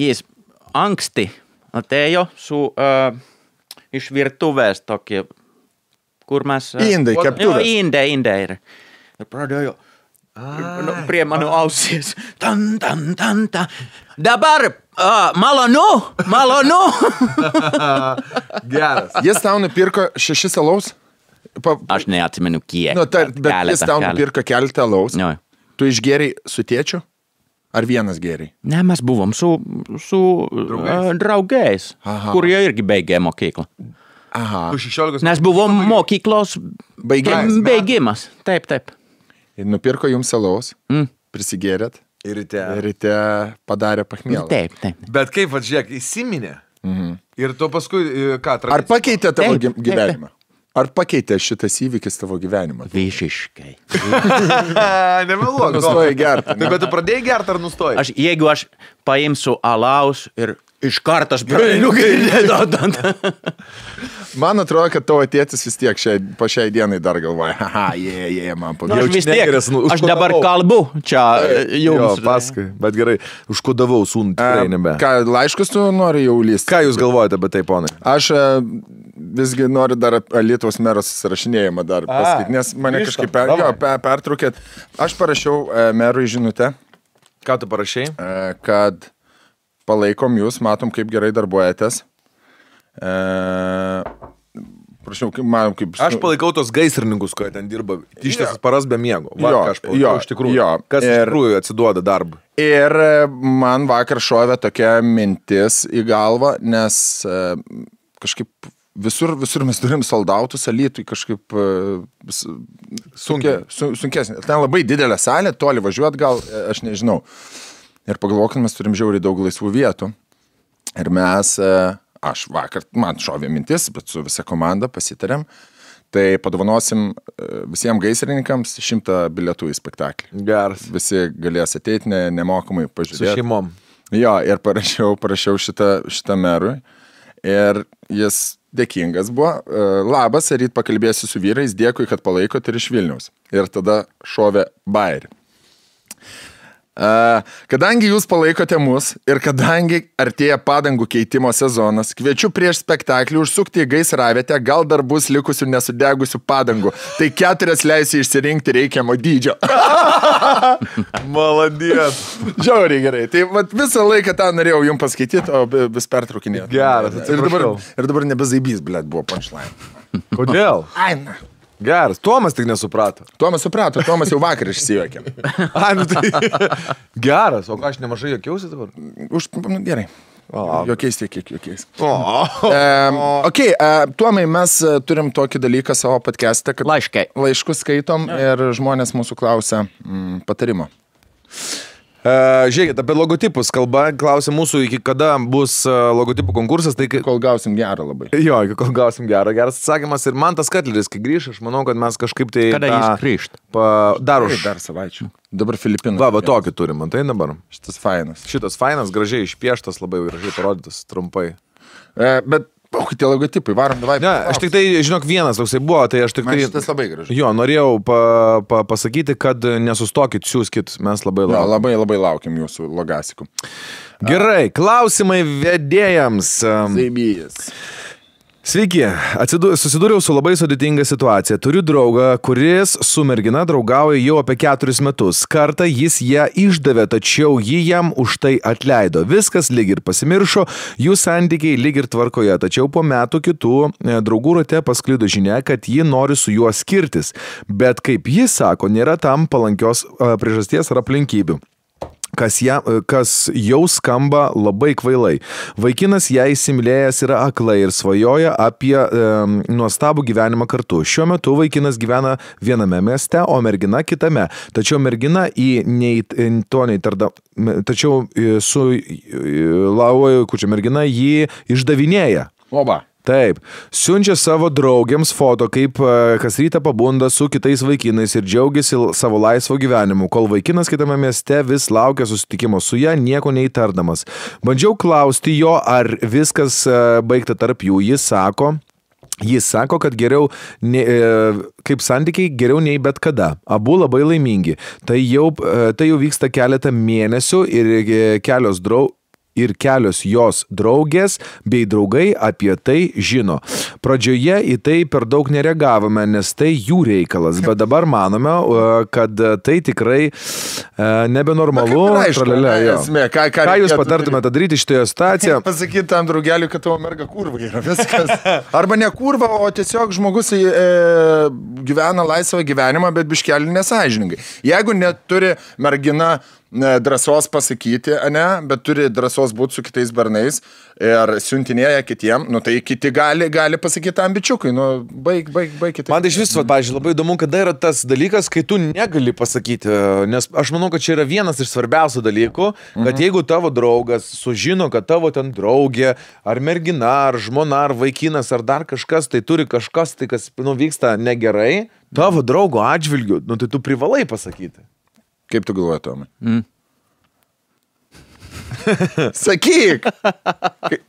Jis anksti atėjo iš virtuvės tokie, kur mes... Indai, keptuvės. Indai. Ir pradėjo prie mano ausies. Tan. Dabar malonu. Geras. Jis tau nupirko 6 alaus? Aš neatsimenu kiek. Bet jis tau nupirko keletą alaus. Tu išgėrei su tėčiu? Ar vienas gėriai? Ne, mes buvom su draugais, kurie irgi baigė mokyklą. Aha. Nes buvom mokyklos baigimas. Taip. Ir nupirko jums alaus, prisigėrėt ir ryte padarė pachmielą. Taip. Bet kaip, žiūrėk, įsiminė. Ir to paskui, ką? Ar pakeitė tavo gyvenimą? Ar pakeitė šitas įvykis tavo gyvenimą? Visiškai. Nemeluok. Nustojai gerti. Bet tu pradėjai gerti ar nustojai? Jeigu aš paimsiu alaus ir iš karto aš prieinu gailėdant. Man atrodo, kad tavo tėtis vis tiek po šiai dienai dar galvoja, man pavyzdžiui. Aš vis tiek, aš dabar kalbu čia jums. Jo, paskui, bet gerai, užkodavau sūnų, tikrai nebe. Ką, laiškus tu nori jau lysti? Ką jūs galvojate apie tai, ponai? Aš visgi noriu dar Lietuvos meros susirašinėjimą dar pasakyti, nes mane kažkaip pertraukėt. Aš parašiau merui žinutę. Ką tu parašai? Kad palaikom jūs, matom, kaip gerai darbuojatės. Prašau, man kaip... Aš palaikau tos gaisrininkus, kurie ten dirba ištisas paras be miego. Iš tikrųjų. Kas iš tikrųjų atsiduoda darbą. Ir man vakar šovė tokia mintis į galvą, nes kažkaip visur mes turim soldautus, Alytui kažkaip sunkesnė. Ten labai didelė salė, toli važiuot gal, aš nežinau. Ir pagalvokim, mes turim žiauriai daug laisvų vietų. Ir mes... Aš vakar, man šovė mintis, bet su visa komanda pasitarėm, tai padovanosim visiems gaisrininkams 100 bilietų į spektaklį. Geras. Visi galės ateiti nemokamai pažiūrėti. Su šeimom. Jo, ir parašiau šitą merui ir jis dėkingas buvo. Labas, ryt pakalbėsiu su vyrais, dėkui, kad palaikot ir iš Vilniaus. Ir tada šovė bairį. Kadangi jūs palaikote mus ir kadangi artėja padangų keitimo sezonas, kviečiu prieš spektaklį užsukti į gaisravietę, gal dar bus likusių nesudegusių padangų. Tai 4 leisiu išsirinkti reikiamo dydžio. Maladės. Žiauriai gerai. Tai visą laiką tą norėjau jums paskaityti, o vis pertraukinėti. Geras, atsiprašau. Ir dabar nebezaibys, blėt, buvo punchline. Kodėl? Aina. Geras, Tomas tik nesuprato. Tomas suprato, Tomas jau vakar išsijuokė. Geras, o aš nemažai jokiausi dabar? Gerai. Jokiais tiek, kiek jokiais. Tomai, mes turim tokį dalyką savo podcast'e, kad laiškus skaitom ir žmonės mūsų klausia patarimo. Žiūrėkit, apie logotipus kalba, klausia mūsų, iki kada bus logotipų konkursas, tai kol gausim gerą labai. Jo, iki kol gausim gerą, geras atsakymas ir man tas Katleris, kai grįš, aš manau, kad mes kažkaip tai... Kada jis grįžt? Dar savaičių. Dabar Filipinų. Va, tokį turim, tai dabar. Šitas fainas, gražiai išpieštas, labai gražiai parodytas, trumpai. Bet... tie logotipai, varom, davai. Ne, aš tik tai, žinok, vienas toksai buvo, tai aš tik tai... Šitas labai gražus. Jo, norėjau pasakyti, kad nesustokit, siūskit, mes labai laukiam. Labai laukiam jūsų logasikų. Gerai, klausimai vedėjams. Zaibijas. Sveiki, susidūriau su labai sudėtinga situacija. Turiu draugą, kuris su mergina draugauja jau apie 4 metus. Kartą jis ją išdavė, tačiau ji jam už tai atleido. Viskas lyg ir pasimiršo, jų santykiai lyg ir tvarkoje. Tačiau po metų kitų draugų rate pasklido žinia, kad ji nori su juo skirtis. Bet kaip jis sako, nėra tam palankios priežasties ar aplinkybių. Kas jau skamba labai kvailai. Vaikinas ją įsimylėjęs yra aklai ir svajoja apie nuostabų gyvenimą kartu. Šiuo metu vaikinas gyvena viename mieste, o mergina kitame. Tačiau mergina mergina jį išdavinėja. Oba. Taip, siunčia savo draugiams foto, kaip kas rytą pabunda su kitais vaikinais ir džiaugiasi savo laisvo gyvenimu, kol vaikinas kitame mieste vis laukia susitikimo su ja, nieko neįtardamas. Bandžiau klausti jo, ar viskas baigta tarp jų. Jis sako, kad geriau, kaip santykiai, geriau nei bet kada. Abu labai laimingi. Tai jau vyksta keletą mėnesių ir kelios jos draugės bei draugai apie tai žino. Pradžioje į tai per daug nereagavome, nes tai jų reikalas, bet dabar manome, kad tai tikrai nebenormalu. Ką jūs patartumėte daryti šitoje situacijoje? Pasakyti tam draugeliui, kad tavo merga kurva yra viskas. Arba ne kurva, o tiesiog žmogus gyvena laisvą gyvenimą, bet biškelį nesąžiningai. Jeigu neturi mergina drąsos pasakyti, ne, bet turi drąsos būti su kitais bernais ir siuntinėja kitiem, nu tai kiti gali pasakyti tam bičiukui, nu baig kitaip. Man tai iš viso, pavyzdžiui, labai įdomu, kada yra tas dalykas, kai tu negali pasakyti, nes aš manau, kad čia yra vienas iš svarbiausių dalykų, kad jeigu tavo draugas sužino, kad tavo ten draugė, ar mergina, ar žmona, ar vaikinas, ar dar kažkas, tai turi kažkas, tai kas, nu, vyksta negerai, tavo draugo atžvilgiu, nu tai tu privalai pasakyti. Kaip tu galvoji, Tomai? Sakyk!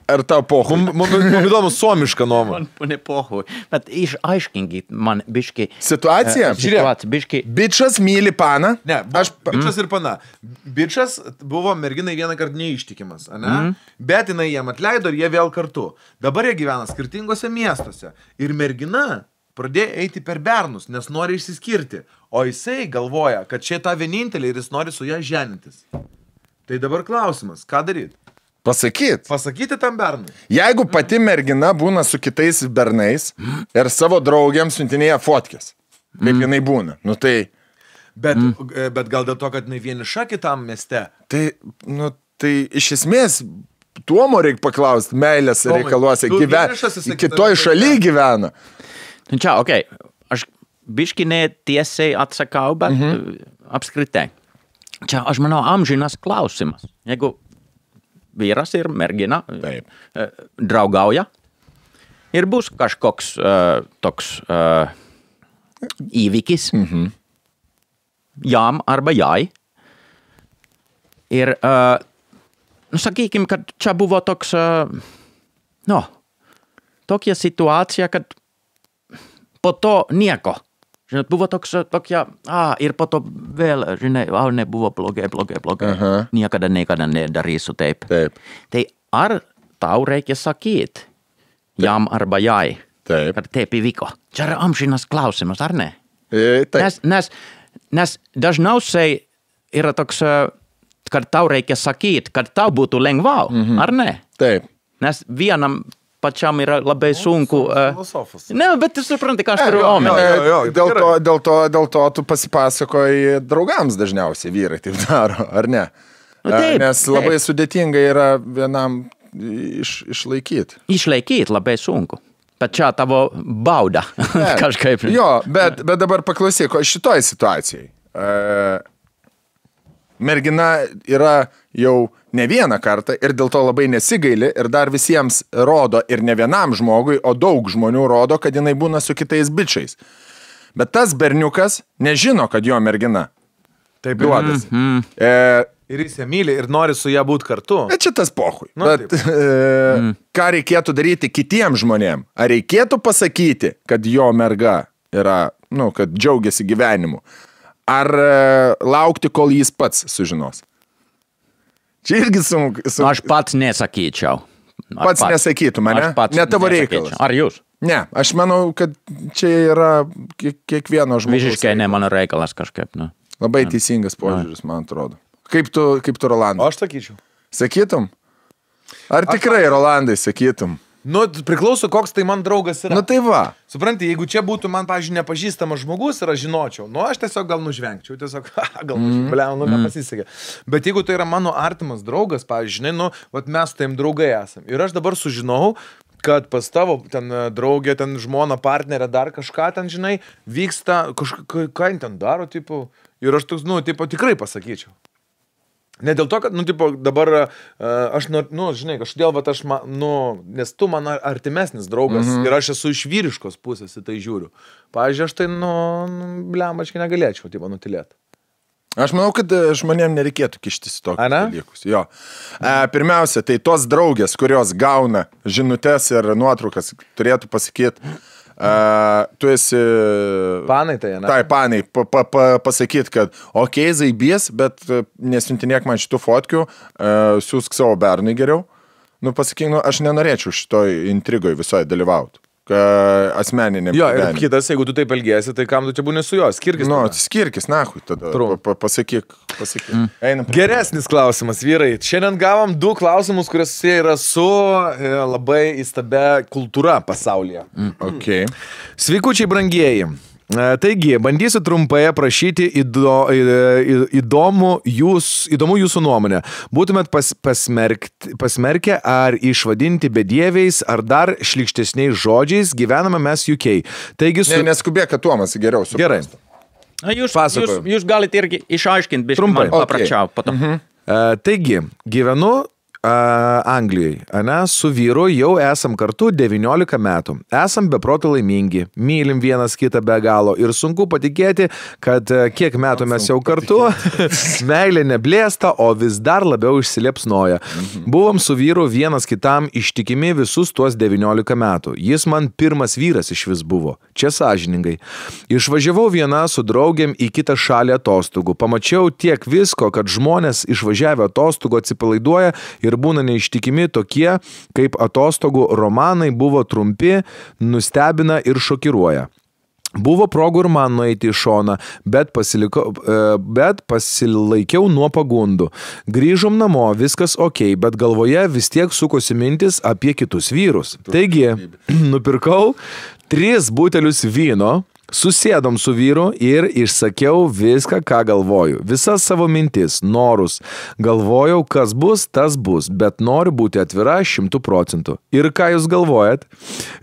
Ar tau pohui? Man įdomu suomišką nuomonę. Man ne pohui. Bet išaiškinkit man biški. Situacija? Žiūrėk, biški. Bičas myli paną? Ne, bičas ir pana. Bičas buvo merginai vieną kartą neištikimas, ane? Bet jinai jam atleido ir jie vėl kartu. Dabar jie gyvena skirtingose miestuose. Ir mergina pradėjo eiti per bernus, nes nori išsiskirti. O jisai galvoja, kad čia ta vienintelė ir jis nori su ją ženintis. Tai dabar klausimas, ką daryti? Pasakyti tam bernui. Jeigu pati mergina būna su kitais bernais ir savo draugiams siuntinėja fotkės, kaip jinai būna, nu tai... Bet gal dėl to, kad jinai vieniša kitam mieste? Tai, nu, tai iš esmės... Tuomo reikia paklausti, meilės reikaluose, kitoj šaly gyvena. Čia, okei, aš biški ne tiesiai atsakau, bet apskritai. Čia, aš manau, amžinas klausimas. Jeigu vyras ir mergina draugauja ir bus kažkoks toks įvykis jam arba jai. Ir, nu, sakykim, kad čia buvo toks, tokia situacija, kad po to nieko. Žinot, buvo tokia, ir po to vėl, žinai, nebuvo blogai. Niekada nedarysiu taip. Tai ar tau reikia sakyti jam arba jai, kad taip įvyko? Čia yra amžinas klausimas, ar ne? Nes dažniausiai yra toks, kad tau reikia sakyti, kad tau būtų lengviau, ar ne? Taip. Nes vienam pačiam yra labai sunku. Filosofas. Ne, bet tu supranti, ką aš turiu omeny. Dėl to tu pasipasakoji draugams dažniausiai vyrai taip daro, ar ne? Nu, taip, nes labai sudėtinga yra vienam išlaikyti. Išlaikyti labai sunku. Bet čia tavo bauda kažkaip. Jo, bet dabar paklausyk, šitoj situacijai. Mergina yra jau ne vieną kartą ir dėl to labai nesigaili ir dar visiems rodo ir ne vienam žmogui, o daug žmonių rodo, kad jinai būna su kitais bičiais. Bet tas berniukas nežino, kad jo mergina. Taip duodas. Ir jis ją myli ir nori su ją būti kartu. Bet čia tas pohui. Bet ką reikėtų daryti kitiems žmonėm? Ar reikėtų pasakyti, kad jo merga yra, nu, kad džiaugiasi gyvenimu? Ar laukti, kol jis pats sužinos? Čia irgi sunku. Aš pats nesakyčiau. Pats nesakytum, ne? Ne tavo reikalas. Ar jūs? Ne, aš manau, kad čia yra kiekvieno žmogaus. Visiškai ne mano reikalas kažkaip. Nu. Labai teisingas požiūris, man atrodo. Kaip tu Rolandai? Aš sakyčiau. Sakytum? Ar tikrai, Rolandai, sakytum? Nu, priklauso, koks tai man draugas yra. Nu, tai va. Supranti, jeigu čia būtų man, pavyzdžiui, nepažįstamas žmogus ir aš žinočiau, nu, aš tiesiog gal nužvengčiau, nepasisekė. Bet jeigu tai yra mano artimas draugas, pavyzdžiui, žinai, nu, vat mes su taim draugai esam. Ir aš dabar sužinau, kad pas tavo ten draugė, ten žmona, partnerė, dar kažką ten, žinai, vyksta, ką jin ten daro, tipo, ir aš toks, nu, tipo, tikrai pasakyčiau. Ne dėl to, kad, nu, tipo, dabar aš, nu, žinai, kažkodėl, bet aš, nu, nes tu man artimesnis draugas ir aš esu iš vyriškos pusės į tai žiūriu. Pavyzdžiui, aš tai, nu, blemačkai negalėčiau, tipo, nutilėti. Aš manau, kad žmonėm nereikėtų kištis į tokius dalykus. Jo. Pirmiausia, tai tos draugės, kurios gauna žinutes ir nuotraukas, turėtų pasakyti, tu esi... Panai tai, ne? Tai, panai, pasakyti, kad okei, zaibys, bet nesiuntinėk man šitų fotkių, siūsk savo bernui geriau. Nu, pasakyk, nu, aš nenorėčiau šitoj intrigoj visoje dalyvauti. Asmeniniam. Jo, ir kitas, jeigu tu taip elgiesi, tai kam tu čia būni su juo? Skirkis. Nu, skirkis, nahui, tada pasakyk. Geresnis klausimas, vyrai. Šiandien gavom 2 klausimus, kurios yra su labai įstabia kultūra pasaulyje. Okay. Sveikučiai brangieji. Taigi, bandysiu trumpai aprašyti įdomų jūsų nuomonę. Būtumėt pasmerkę ar išvadinti bedieviais, ar dar šlykštesniais žodžiais, gyvename mes UK. Taigi, neskubėk, kad Tuomas geriau suprastų. Gerai. Jūs galite irgi išaiškinti, biškai man paprašiau. Taigi, gyvenu Anglijai, su vyru jau esam kartu 19 metų. Esam beproto laimingi, mylim vienas kitą be galo ir sunku patikėti, kad kiek metų mes jau kartu, meilė neblėsta, o vis dar labiau išsiliepsnoja. Buvom su vyru vienas kitam ištikimi visus tuos 19 metų. Jis man pirmas vyras iš vis buvo, čia sąžiningai. Išvažiavau viena su draugėm į kitą šalį atostogų. Pamačiau tiek visko, kad žmonės išvažiavę atostogų atsipalaiduoja ir būna neištikimi tokie, kaip atostogų romanai buvo trumpi, nustebina ir šokiruoja. Buvo progų ir man nueiti į šoną, bet pasilaikiau nuo pagundų. Grįžom namo, viskas ok, bet galvoje vis tiek sukosi mintis apie kitus vyrus. Taigi, nupirkau 3 butelius vyno, susėdom su vyru ir išsakiau viską, ką galvoju. Visas savo mintis, norus. Galvojau, kas bus, tas bus, bet noriu būti atvira 100%. Ir ką jūs galvojat?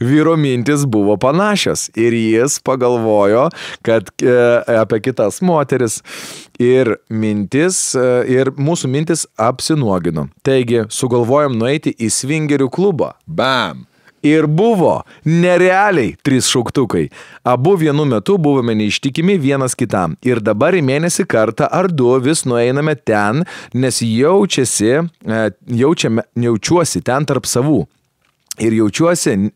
Vyro mintis buvo panašios ir jis pagalvojo, kad apie kitas moteris ir mūsų mintis apsinuogino. Taigi, sugalvojom nueiti į svingerių klubą. Bam! Ir buvo nerealiai 3 šauktukai. Abu vienu metu buvome neištikimi vienas kitam. Ir dabar į mėnesį kartą ar 2 vis nueiname ten, nes jaučiuosi ten tarp savų. Ir jaučiuosi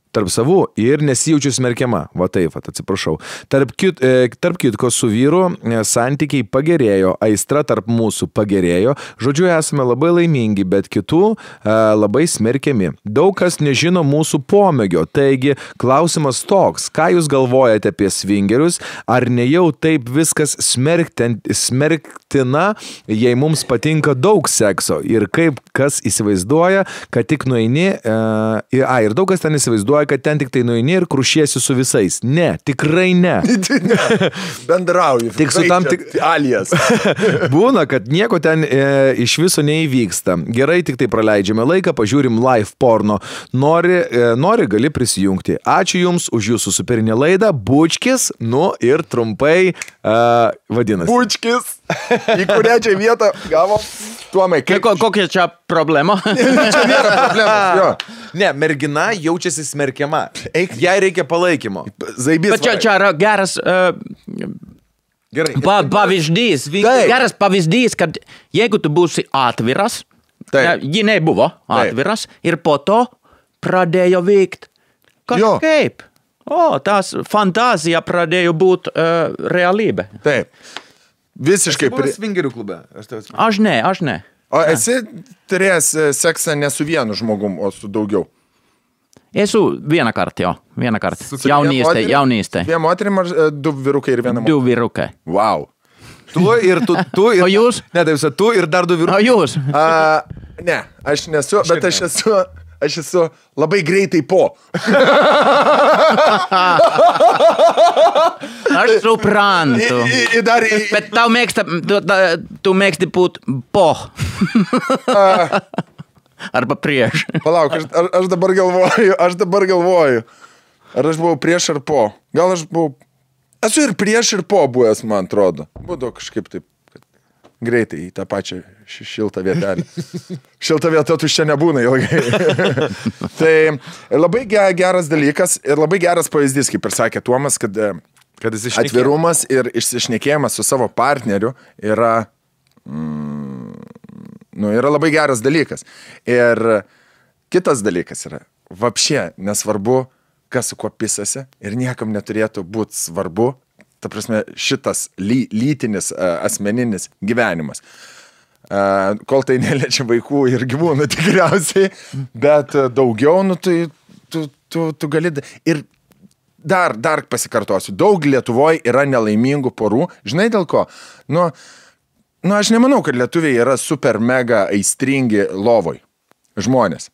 tarp savų ir nesijaučiu smerkiama. Va taip, atsiprašau. Tarp kitko su vyru santykiai pagerėjo, aistra tarp mūsų pagerėjo. Žodžiu, esame labai laimingi, bet kitų labai smerkiami. Daug kas nežino mūsų pomėgio. Taigi, klausimas toks, ką jūs galvojate apie svingerius? Ar ne jau taip viskas smerktina, jei mums patinka daug sekso? Ir kaip kas įsivaizduoja, kad tik nueini... ir daug kas ten įsivaizduoja, kad ten tik tai nueini ir krušiesi su visais. Ne, tikrai ne. Bendrauju. Tik su tam alijas. Būna, kad nieko ten iš viso neįvyksta. Gerai, tik tai praleidžiame laiką, pažiūrim live porno. Nori gali prisijungti. Ačiū Jums už Jūsų superinę laidą. Bučkis, ir trumpai vadinasi. Bučkis. Į kurią čia vietą gavom? Tuomai, kokia čia problema? Čia nėra problemos, jo. Ne, mergina jaučiasi smerkiama. Jai reikia palaikymo. Bet čia yra geras pavyzdys. Geras pavyzdys, kad jeigu tu būsi atviras, ji nebuvo atviras, ir po to pradėjo veikt kažkaip. Tas fantazija pradėjo būt realybė. Taip. Visiškai. Esi buvęs svingerių klube? Aš ne. O esi turėjęs seksą ne su vienu žmogum, o su daugiau? Esu vieną kartą. Jaunystė. 2 moterim ar 2 vyrukai ir 1 moterim? 2 vyrukai. Wow. Tu ir... O jūs? Ne, taip, tu ir dar 2 vyrukai. O jūs? Ne, aš nesu, bet aš esu labai greitai po. Aš suprantu. Bet tu mėgsti būt po. Arba prieš. Palauk, aš dabar galvoju. Ar aš buvau prieš ar po? Gal aš buvau... Esu ir prieš ir po buvęs, man atrodo. Būdavo kažkaip taip greitai į tą pačią šiltą vietelę. Šiltą vietą tuščia nebūna ilgai. Tai labai geras dalykas ir labai geras pavyzdys, kaip ir sakė Tuomas, kad atvirumas ir išsišnekėjimas su savo partneriu yra labai geras dalykas. Ir kitas dalykas yra, vapšė nesvarbu, kas su kuo pisasi ir niekam neturėtų būti svarbu, ta prasme, šitas lytinis asmeninis gyvenimas. Kol tai neliečia vaikų ir gyvūnų tikriausiai, bet daugiau, tu gali... Ir dar pasikartosiu, daug Lietuvoje yra nelaimingų porų. Žinai dėl ko? Aš nemanau, kad lietuviai yra super mega aistringi lovoj žmonės.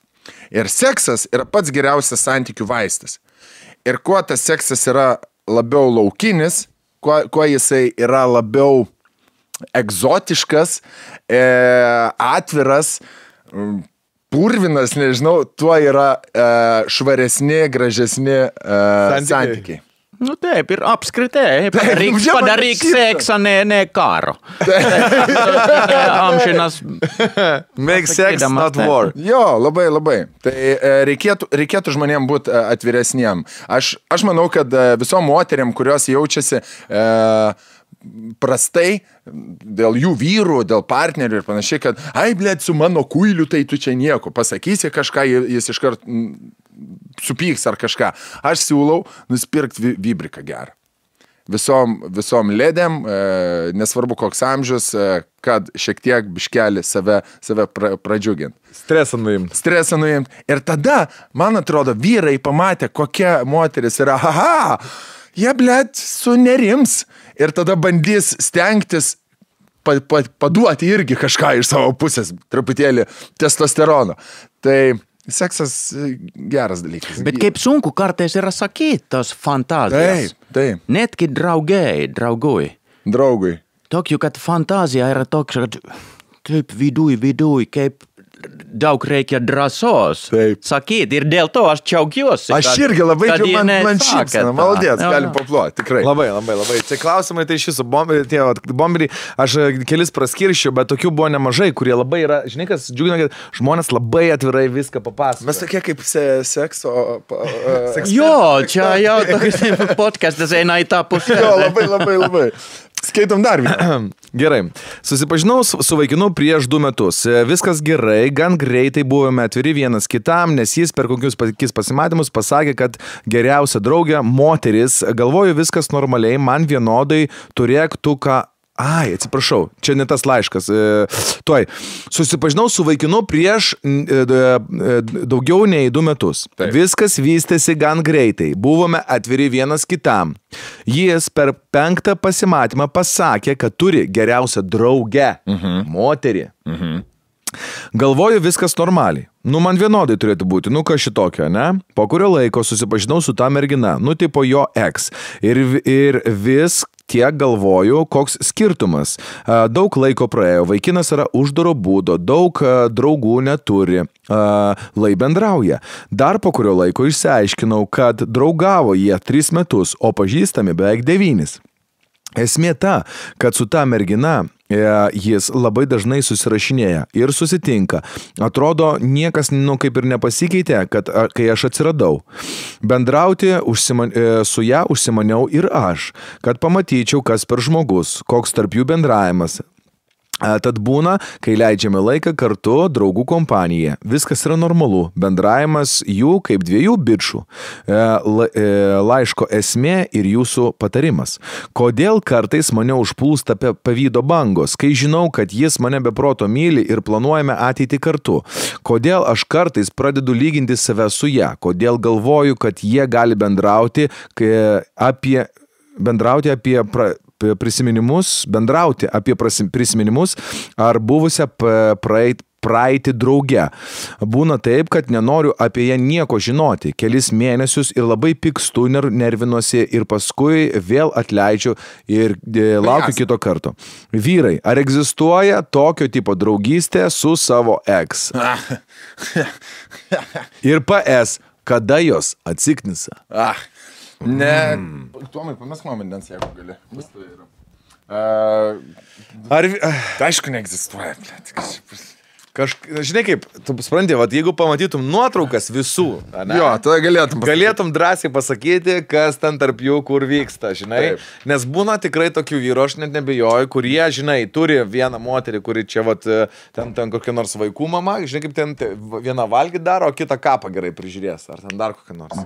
Ir seksas yra pats geriausias santykių vaistas. Ir kuo tas seksas yra labiau laukinis, kuo jisai yra labiau egzotiškas, atviras, purvinas, nežinau, tuo yra švaresni, gražesni santykiai. Nu taip, ir apskritai, padaryk seksą, ne karo. Amžinas. Make sex, not war. Jo, labai. Tai reikėtų žmonėm būti atviresniem. Aš manau, kad visom moteriam, kurios jaučiasi prastai dėl jų vyrų, dėl partnerių ir panašiai, kad blėt, su mano kuiliu, tai tu čia nieko. Pasakysi kažką, jis iškart supyks ar kažką. Aš siūlau nusipirkti vibriką gerą. Visom ledėm, nesvarbu koks amžius, kad šiek tiek biškelį save pradžiugint. Stresą nuimt. Ir tada, man atrodo, vyrai pamatė, kokia moteris yra. Jie, blėt, sunerims. Ir tada bandys stengtis paduoti irgi kažką iš savo pusės, truputėlį testosterono. Tai seksas geras dalykas. Bet kaip sunku kartais yra sakyti tos fantazijas. Taip. Netgi draugui. Tokiu, kad fantazija yra toks, kad kaip viduj, kaip daug reikia drąsos sakyti. Ir dėl to aš džiaugiuosi. Aš irgi labai man šypsena. Maldės, galim paploti, tikrai. Labai. Tai klausimai, tai šis bomberiai, aš kelis praskirščiau, bet tokių buvo nemažai, kurie labai yra, žinai, kas džiugina, kad žmonės labai atvirai viską papasakoja. Mes tokie kaip sekso. Jo, čia jau toks podcastas eina į tą pusę. Jo, labai. Skaitom dar vieną. Gerai. Susipažinau su vaikinu prieš 2 metus. Viskas gerai, gan greitai buvome atviri vienas kitam, nes jis per kokius pasimatymus pasakė, kad geriausia draugė moteris. Galvoju, viskas normaliai, man vienodai, turėk tu ką... atsiprašau, čia ne tas laiškas. Susipažinau su vaikinu prieš daugiau nei 2 metus. Taip. Viskas vystėsi gan greitai. Buvome atviri vienas kitam. Jis per 5. pasimatymą pasakė, kad turi geriausią draugę. Moterį. Galvoju, viskas normaliai. Man vienodai turėtų būti, kas šitokio, ne? Po kurio laiko susipažinau su ta mergina, tipo jo ex. Ir vis tiek galvoju, koks skirtumas. Daug laiko praėjo, vaikinas yra uždaro būdo, daug draugų neturi, lai bendrauja. Dar po kurio laiko išsiaiškinau, kad draugavo jie 3 metus, o pažįstami beveik 9. Esmė ta, kad su ta mergina jis labai dažnai susirašinėja ir susitinka. Atrodo, niekas kaip ir nepasikeitė, kai aš atsiradau. Bendrauti su ją užsimaniau ir aš, kad pamatyčiau, kas per žmogus, koks tarp jų bendravimas. Tad būna, kai leidžiame laiką kartu draugų kompaniją. Viskas yra normalu. Bendravimas jų kaip 2 bičų. Laiško esmė ir jūsų patarimas. Kodėl kartais mane užplūsta pavydo bangos, kai žinau, kad jis mane be proto myli ir planuojame ateitį kartu? Kodėl aš kartais pradedu lyginti save su ją? Kodėl galvoju, kad jie gali bendrauti apie prisiminimus ar buvusią praeitį drauge. Būna taip, kad nenoriu apie ją nieko žinoti. Kelis mėnesius ir labai pykstu, nervinuosi ir paskui vėl atleidžiu ir laukiu kito karto. Vyrai, ar egzistuoja tokio tipo draugystė su savo ex? Ir PS, kada jos atsiknisa? Ne, Tuomai, pamesk man vandens, jeigu gali. Vis tai yra. Aišku, neegzistuoja. Žinai kaip, tu supranti, jeigu pamatytum nuotraukas visų, jo, tada galėtum drąsiai pasakyti, kas ten tarp jų kur vyksta, žinai. Taip. Nes būna tikrai tokių vyrų, aš net nebejoju, kurie, žinai, turi vieną moterį, kuri čia ten kokia nors vaikų mama, žinai kaip ten vieną valgį daro, o kitą kapą gerai prižiūrės, ar ten dar kokią nors.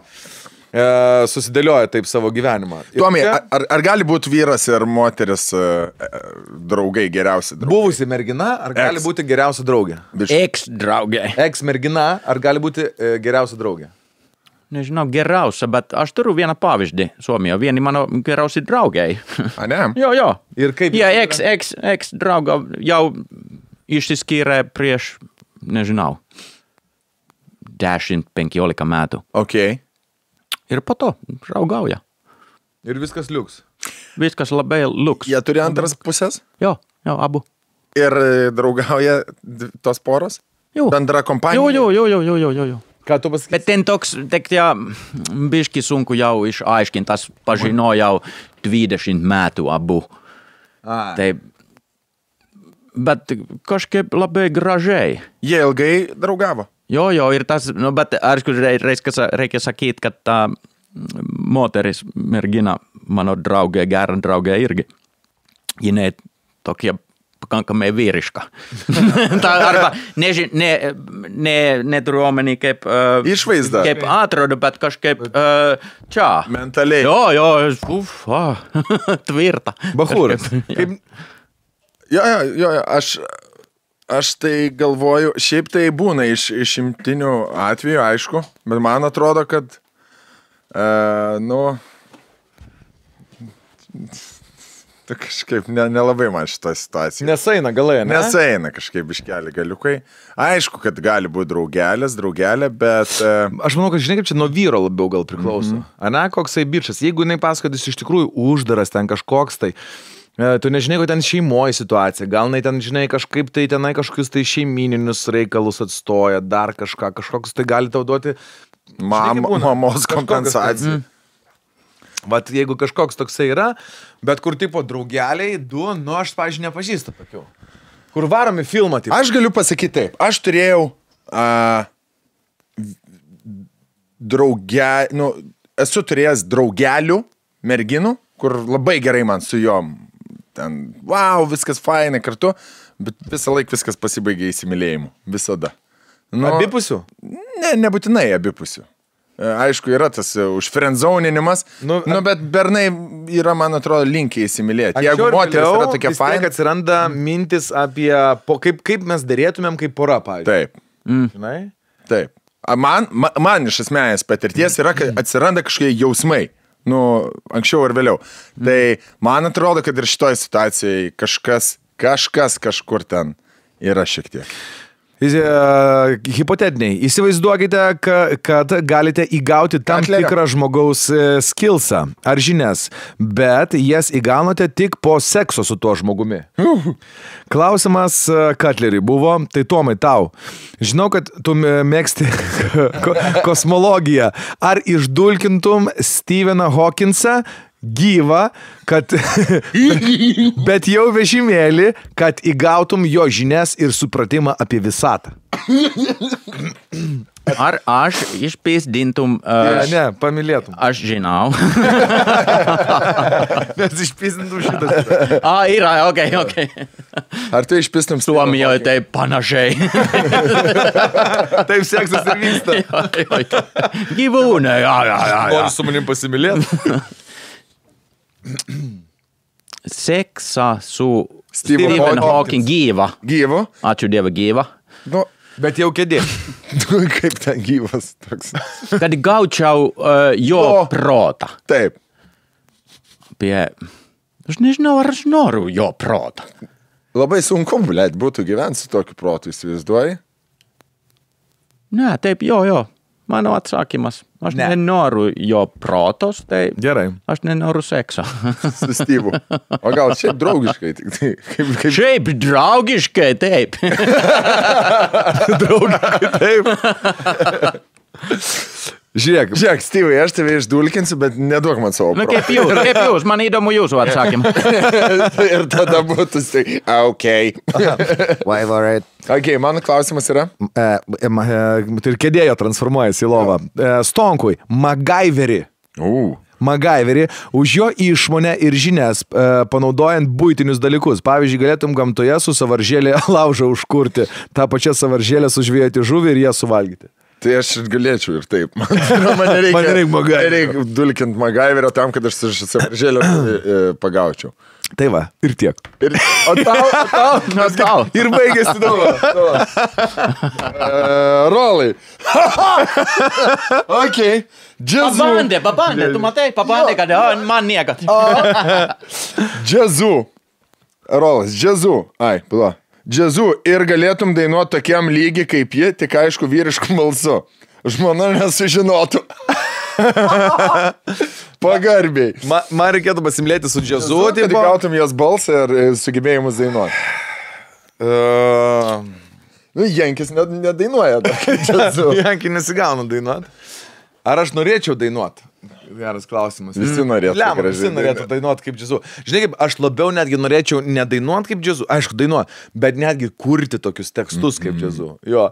Susidėlioja taip savo gyvenimą. Tuomai, ar gali būti vyras ir moteris draugai, geriausi draugai? Buvusi mergina, ar gali būti geriausia draugė? Ex-draugė. Ex-mergina, ar gali būti geriausia draugė? Nežinau, geriausia, bet aš turiu vieną pavyzdį Suomijoje, vieni mano geriausi draugai. Ne? Jo. Ir kaip? Jie ex-drauga jau išsiskyrė prieš, nežinau, 10-15 metų. Okay. Ir po to raugauja. Ir viskas liuks. Viskas labai liuks. Jie turi antras pusės? Jo, abu. Ir draugauja tos poros? Jau. Bendra kompanija? Jo. Ką tu pasakysi? Bet ten toks, biški sunku jau išaiškintas, pažino jau 20 metų abu. Tai, bet kažkaip labai gražiai. Jie ilgai draugavo? Jo, ir tas, bet aišku, reikia sakyti, kad ta moteris, mergina, mano draugė, gera draugė irgi, jinai tokia pakankamai vyriška. Arba neturiu omeny kaip išvaizda. Kaip atrodo, bet kažkaip čia. Mentaliai. Jo, tvirta. Bachūras. Jo, aš tai galvoju, šiaip tai būna išimtinių atvejų, aišku, bet man atrodo, kad tai kažkaip nelabai man šitą situaciją. Nesaina galai, ne? Nesaina kažkaip iškeli galiukai. Aišku, kad gali būti draugelė, bet... Aš manau, kad žinai, kaip čia nuo vyro labiau gal priklauso. Ane, koksai bičas. Jeigu jinai pasakodys iš tikrųjų uždaras ten kažkoks, tai tu nežinai, kad ten šeimoje situacija. Gal jinai ten, žinai, kažkaip tai tenai kažkokius tai šeimininius reikalus atstoja, dar kažkoks tai gali tau duoti mamos kompensaciją. Vat jeigu kažkoks toksai yra, bet kur tipo draugeliai, aš, pavyzdžiui, nepažįstu tokių. Kur varomi filmą, tipo. Aš galiu pasakyti taip. Aš turėjau esu turėjęs draugelių, merginų, kur labai gerai man su jom. Ten, viskas fainai kartu, bet visą laiką viskas pasibaigė įsimylėjimu. Visada. Abipusių? Ne, nebūtinai abipusių. Aišku, yra tas užfriendzauninimas, bet bernai yra, man atrodo, linkiai įsimylėti. Jeigu moteris yra tokia faina. Vis tiek atsiranda mintis apie, kaip mes dėrėtumėm kaip pora, pavyzdžiui. Taip. Žinai? Taip. Man iš esmės patirties yra, kad atsiranda kažkokie jausmai. Anksčiau ar vėliau. Tai man atrodo, kad ir šitoj situacijai kažkas kažkur ten yra šiek tiek. Hipotetiniai. Įsivaizduokite, kad galite įgauti tam tikrą žmogaus skillsą ar žinias, bet jas įgaunate tik po sekso su tuo žmogumi. Klausimas Katleriui buvo, tai Tomai tau. Žinau, kad tu mėgsti kosmologiją. Ar išdulkintum Steveną Hawkinsą gyvą, kad bet jau vežimėlį, kad įgautum jo žinias ir supratimą apie visatą. Ar aš išpėsdintum... Ne, pamylėtum. Aš žinau. Nes išpėsdintum šitą. Yra, okei. Ar tu išpėstum Suomijoje tai panašiai. Taip seksas ir vyksta. Gyvūnai, Nori su manim pasimylėti? Seksa su Stephen Hawking gyva. Gyvo? Ačiū Dievui gyva. Bet jau kėdė. Kaip ten gyvas toks. Kad gaučiau jo protą. Taip. Aš nežinau, ar aš noriu jo protą. Labai sunku, būtų gyventi su tokiu protu, įsivaizduoji? Ne, taip, jo. Mano atsakymas. Aš nenoriu jo protos, tai gerai. Aš nenoriu sekso. Su Steve'u. O gal šiaip draugiškai tik tai? Šiaip draugiškai, taip. Draugiškai, taip. Žiūrėk, Steve'ai, aš tave išdulkinsiu, bet neduok man savo protą. Kaip jūs, man įdomu jūsų atsakymą. Ir tada būtų okay. Why worried? Ok, mano klausimas yra? Tai ir kėdėjo transformuojasi į lovą. Stonkui, MacGyverį. MacGyverį už jo išmonę ir žinias, panaudojant buitinius dalykus. Pavyzdžiui, galėtum gamtoje su savaržėlė laužą užkurti, tą pačią savaržėlę sužvėjoti žuvį ir ją suvalgyti. Tai aš galėčiau ir taip. Man reikia dulkinti MacGyverio tam, kad aš su savaržėlę pagaučiau. Tai va, ir tiek. O tau. Ir baigėsi rolai. Ok. Pabandė, tu matai, kad man niekat. Džiazu. Rolas, džiazu. Džiazu ir galėtum dainuoti tokiam lygiai kaip ji, tik aišku vyrišku balsu. Žmona nesužinotų. Pagarbiai. Man reikėtų pasimlėti su džiazu. Kad gautum jos balsą ir sugebėjimus dainuoti. Jankis nedainuoja džiazu. Jankis nesigauna dainuoti. Ar aš norėčiau dainuoti? Geras klausimas. Visi norėtų. Visi norėtų dainuoti kaip džiazu. Žinai, kaip aš labiau netgi norėčiau nedainuoti kaip džiazu. Aišku, dainuoti, bet netgi kurti tokius tekstus kaip džiazu. Jo.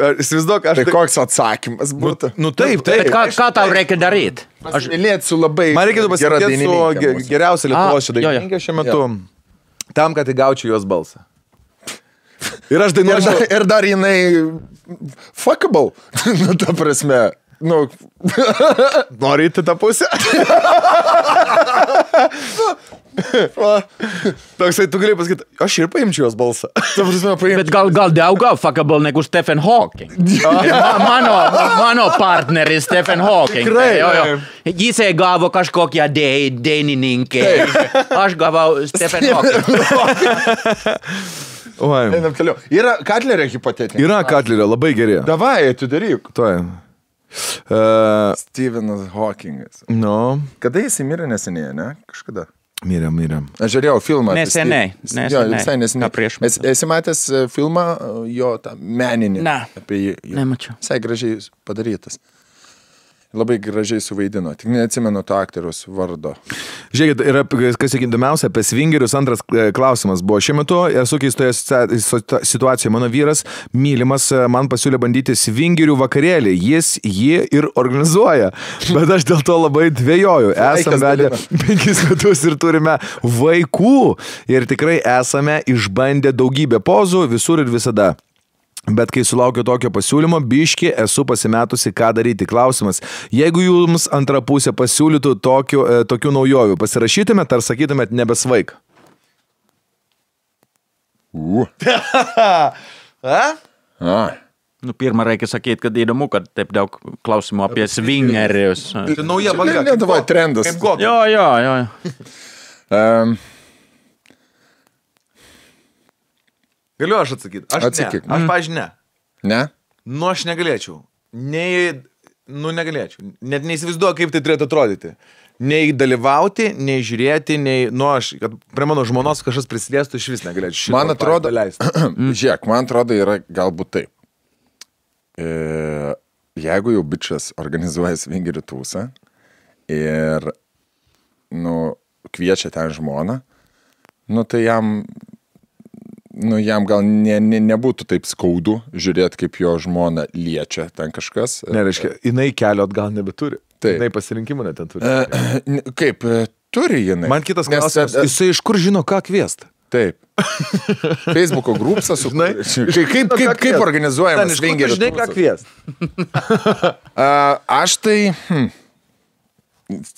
Įsivaizduok, Tai koks atsakymas būtų? Nu taip. Bet ką tau reikia daryti? Aš mylėt su labai Man reikėtų gera pasimlėti dainininkė. su geriausia Lietuvos šia dainininkė šiuo metu. Tam, kad įgaučiau jos balsą. Ir aš dainuočiau. Ir dar jinai fuckable. Nu, ta prasme. Nu. Nori įti tą pusę? Toksai, tu gali pasakyti, aš ir paimčiau jos balsą. Bet gal daugiau fuckable negu Stephen Hawking. Mano partneris Stephen Hawking. Tikrai. Jis gavo kažkokią dainininkę. Aš gavau Stephen Hawking. Einam toliau. Yra Katlerio hipotetinė. Yra Katlerio, labai geri. Davai, atidaryk. Tuoj. Stephenas Hawkingas. Nu. Kada jis mirė neseniai, ne? Kažkada. Mirėm. Aš žiūrėjau filmą. Neseniai. Jo, visai neseniai. Esi matęs filmą jo tą meninį? Ne. Apie jį. Nemačiau. Visai gražiai padarytas. Labai gražiai suvaidino. Tik neatsimenu to aktoriaus vardo. Žiūrėkit, yra, kas įdomiausia, apie svingerius antras klausimas buvo. Šiuo metu esu keistoje situacijoje. Mano vyras, mylimas, man pasiūlė bandyti svingerių vakarėlį. Jis jį ir organizuoja. Bet aš dėl to labai dvejoju. Esame vedę 5 metus ir turime vaikų. Ir tikrai esame išbandę daugybę pozų visur ir visada. Bet kai sulaukiu tokio pasiūlymo, biški esu pasimetusi, ką daryti. Klausimas, jeigu jums antra pusė pasiūlytų tokių naujovių, pasirašytumėt ar sakytumėt nebesvaik? Nu, pirmą reikia sakyti, kad įdomu, kad taip daug klausimų apie swingerius. Tai nauja banga. Lietuvoj trendas. Jo. Galiu aš atsakyti? Atsakyk. Aš, pavyzdžiui, ne. Ne? Nu, aš negalėčiau. Negalėčiau. Net neįsivaizduoju, kaip tai turėtų atrodyti. Nei dalyvauti, nei žiūrėti, nei... Nu, aš, kad prie mano žmonos kažkas prisidėstų, iš vis negalėčiau. Man atrodo, žiūrėk, man atrodo, yra galbūt taip. Jeigu jau bičas organizuoja svingerių tūsą ir, nu, kviečia ten žmoną, nu, tai jam gal nebūtų taip skaudu žiūrėti, kaip jo žmona liečia ten kažkas. Nereiškia, jinai kelio atgal nebeturi. Taip. Jinai pasirinkimų net ten turi. Kaip, turi jinai. Man kitas klausimas, jisai iš kur žino, ką kviesti? Taip. Facebooko grupsą su... Kaip organizuojamas svingerių žinai, ką kviesti? Aš tai...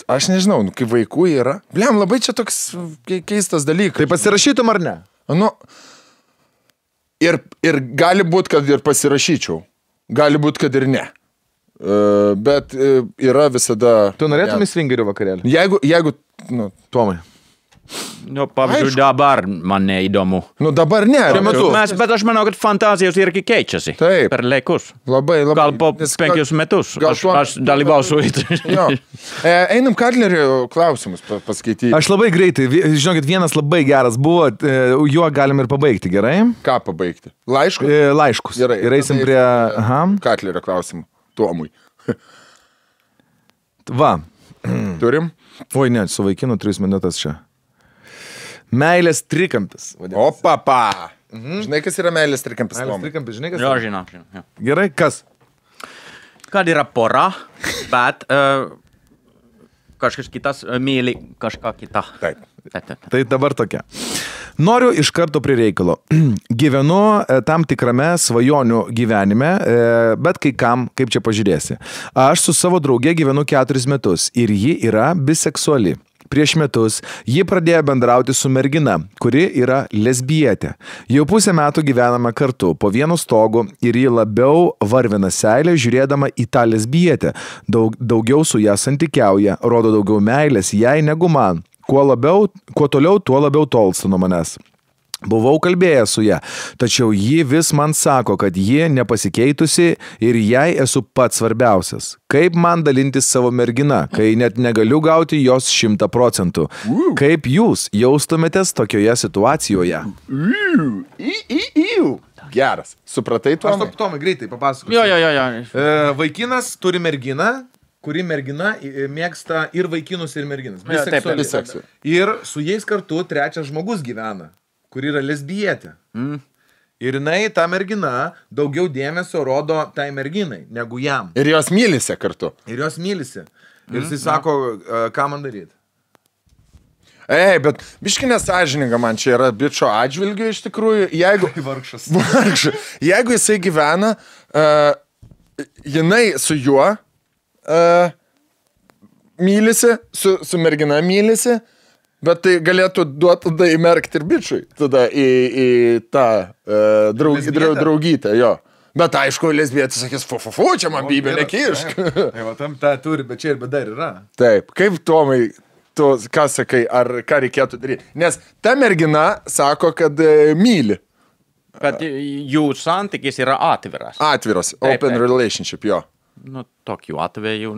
Aš nežinau, kai vaikų yra. Bliam, labai čia toks keistas dalykas. Tai pasirašytum ar ne? Nu... Ir gali būti, kad ir pasirašyčiau. Gali būti, kad ir ne. Bet yra visada... Tu norėtum į svingerių vakarėlį? Jeigu nu, Tomai. Nu, pavyzdžiui, dabar man neįdomu. Nu, dabar ne. Bet aš manau, kad fantazijos irgi keičiasi. Taip. Per laikus. Labai. Gal po 5 metus. Aš dalyvausiu. Jo. Einam Katlerio klausimus paskaityti. Aš labai greitai. Žinokit, vienas labai geras buvo. Juo galim ir pabaigti, gerai? Ką pabaigti? Laiškus? Laiškus. Gerai. Ir eisim prie... Katlerio klausimų. Tomui. Va. Turim? Oi, ne, su vaikinu 3 minutės čia. Meilės trikampis. O, papa. Žinai, kas yra meilės trikampis? Meilės trikampis, žinai, kas Jo, yra? žinau. Gerai, kas? Kad yra pora, bet kažkas kitas myli kažką kitą. Taip. Tai dabar tokia. Noriu iš karto prie reikalo. Gyvenu tam tikrame svajonių gyvenime, bet kai kam, kaip čia pažiūrėsi. Aš su savo drauge gyvenu 4 metus ir ji yra biseksuali. Prieš metus ji pradėjo bendrauti su mergina, kuri yra lesbietė. Jau 5 metų gyvename kartu, po vienu stogu ir ji labiau varvina seilę žiūrėdama į tą lesbietę. Daugiau su ją santykiauja, rodo daugiau meilės jai negu man. Kuo toliau, tuo labiau tolsta nuo manęs. Buvau kalbėjęs su ją, tačiau ji vis man sako, kad ji nepasikeitusi ir jai esu pats svarbiausias. Kaip man dalintis savo mergina, kai net negaliu gauti jos 100%? Kaip jūs jaustumėtės tokioje situacijoje? Geras. Supratai, Tomai? Aš Tomai greitai papasakosiu. Jo. Vaikinas turi merginą, kuri mergina mėgsta ir vaikinus, ir merginas. Biseksuali. Ir su jais kartu trečias žmogus gyvena, kuri yra lesbietė. Ir jinai, ta mergina, daugiau dėmesio rodo tai merginai, negu jam. Ir jos mylisi kartu. Ir jos mylisi. Ir jis sako, ką man daryti. Bet biški nesąžininga man čia yra bičo atžvilgiu iš tikrųjų. Jeigu... Vargšas. Jeigu jisai gyvena, jinai su juo mylisi, su mergina mylisi, bet tai galėtų duoti tada įmerkti ir bičiui, tada į tą draugytę, jo. Bet aišku, lesbietis sakys, fu, čia man bybė nekišk. Tai va, tam tą turi, bet čia ir bet dar yra. Taip, kaip Tomai, tu ką sakai, ar ką reikėtų daryti? Nes ta mergina sako, kad myli. Kad jų santykis yra atviras. Atviras, open relationship, jo. Nu, tokiu atveju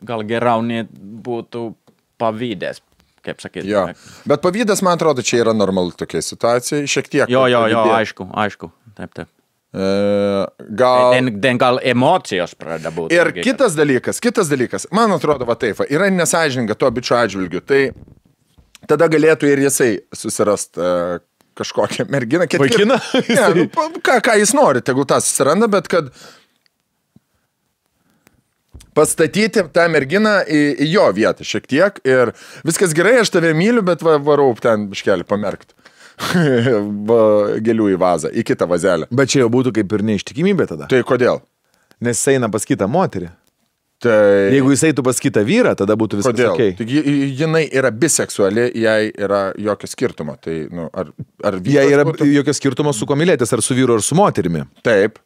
gal geriau net būtų pavydės, kaip sakyti. Jo, bet pavydas, man atrodo, čia yra normalu tokia situacija, šiek tiek. Jo, aišku, taip. Gal emocijos pradeda būti. Ir kitas dalykas, man atrodo, va taip, yra nesąžininga to bičio atžvilgiu, tai tada galėtų ir jisai susirast kažkokią merginą. Vaikiną? Ne, ką jis nori, tegul tą susiranda, bet kad pastatyti tą merginą į jo vietą šiek tiek ir viskas gerai, aš tave myliu, bet varau ten biškelį pamerkti. Gėlių į vazą, į kitą vazelę. Bet čia jau būtų kaip ir neištikimybė tada. Tai kodėl? Nes jis eina pas kitą moterį. Tai... Jeigu jis eitų pas kitą vyrą, tada būtų viskas kodėl? Okay. Taigi jinai yra biseksuali, jai yra jokio skirtumo. Tai, nu, ar jai yra jokio skirtumo su kuo mylėtis, ar su vyru, ar su moterimi. Taip.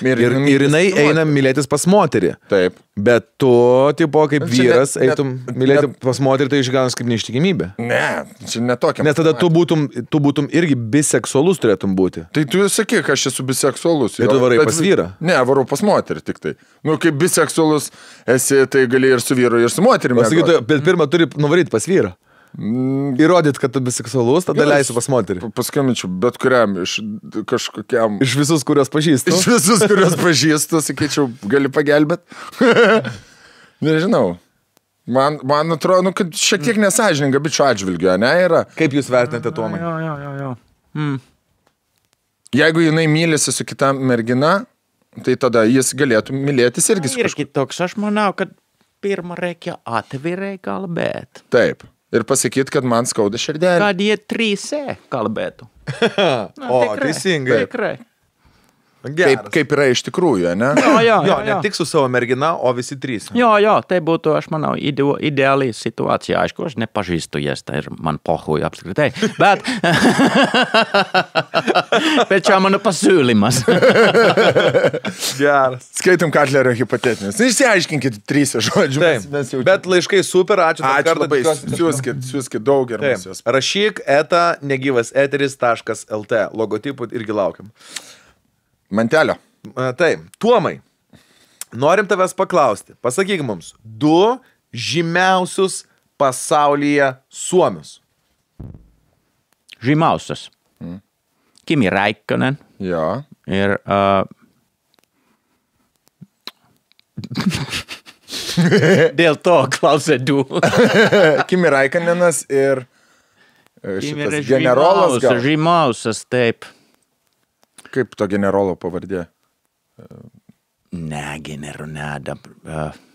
Ir jinai eina mylėtis pas moterį. Taip. Bet tu, tipo, kaip vyras, eitum mylėti pas moterį, tai išganas kaip neištikimybė. Ne, čia netokia. Nes tada tu būtum irgi biseksualus turėtum būti. Tai tu sakyk, aš esu biseksualus. Tai tu varai pas vyrą? Ne, varau pas moterį tik tai. Nu, kaip biseksualus esi, tai gali ir su vyru, ir su moterimi. Pasakytų, bet pirmą turi nuvaryti pas vyrą. Įrodyt, kad tu biseksualus, tada leisiu pas moterį. Paskambinčiau bet kuriam, iš kažkokiam... Iš visus, kurios pažįstu. Iš visus, kurios pažįstu, sakyčiau, gali pagelbėt. Nežinau. Man atrodo, nu, kad šiek tiek nesąžininga bičio atžvilgiu, ne, yra. Kaip jūs vertinate, Tomai? Jo. Jeigu jinai mylisi su kita mergina, tai tada jis galėtų mylėtis irgi su kažkuo. Ir toks, aš manau, kad pirmą reikia atvirai kalbėti. Taip. Ir pasakyti, kad man skauda širdelė. Kad jie 3 kalbėtų. Teisingai. Tikrai. Kaip yra iš tikrųjų, ne? Jo, ne tik su savo mergina, o visi 3. Jo, tai būtų, aš manau, ideali situacija. Aišku, aš nepažįstu jas, tai ir man pohui apskritai. Bet čia mano pasiūlymas. Geras. Skaitom Katlerio hipotetinis. Išsiaiškinkit 3 žodžius. Bet laiškai super, ačiū. Ačiū labai, siūskit daug ir mes jos. Rašyk negyvaseteris.lt. Logotipų irgi laukiam. Mantelio. Taip, Tuomai, norim tavęs paklausti. Pasakyk mums 2 žymiausius pasaulyje suomius. Žymiausias. Kimi Räikkönen. Jo. Ir... Dėl to klausė 2. Kimi Räikkönenas ir šitas generolas gal. Žymiausias, taip. Kaip to generolo pavardė? Ne, generonada.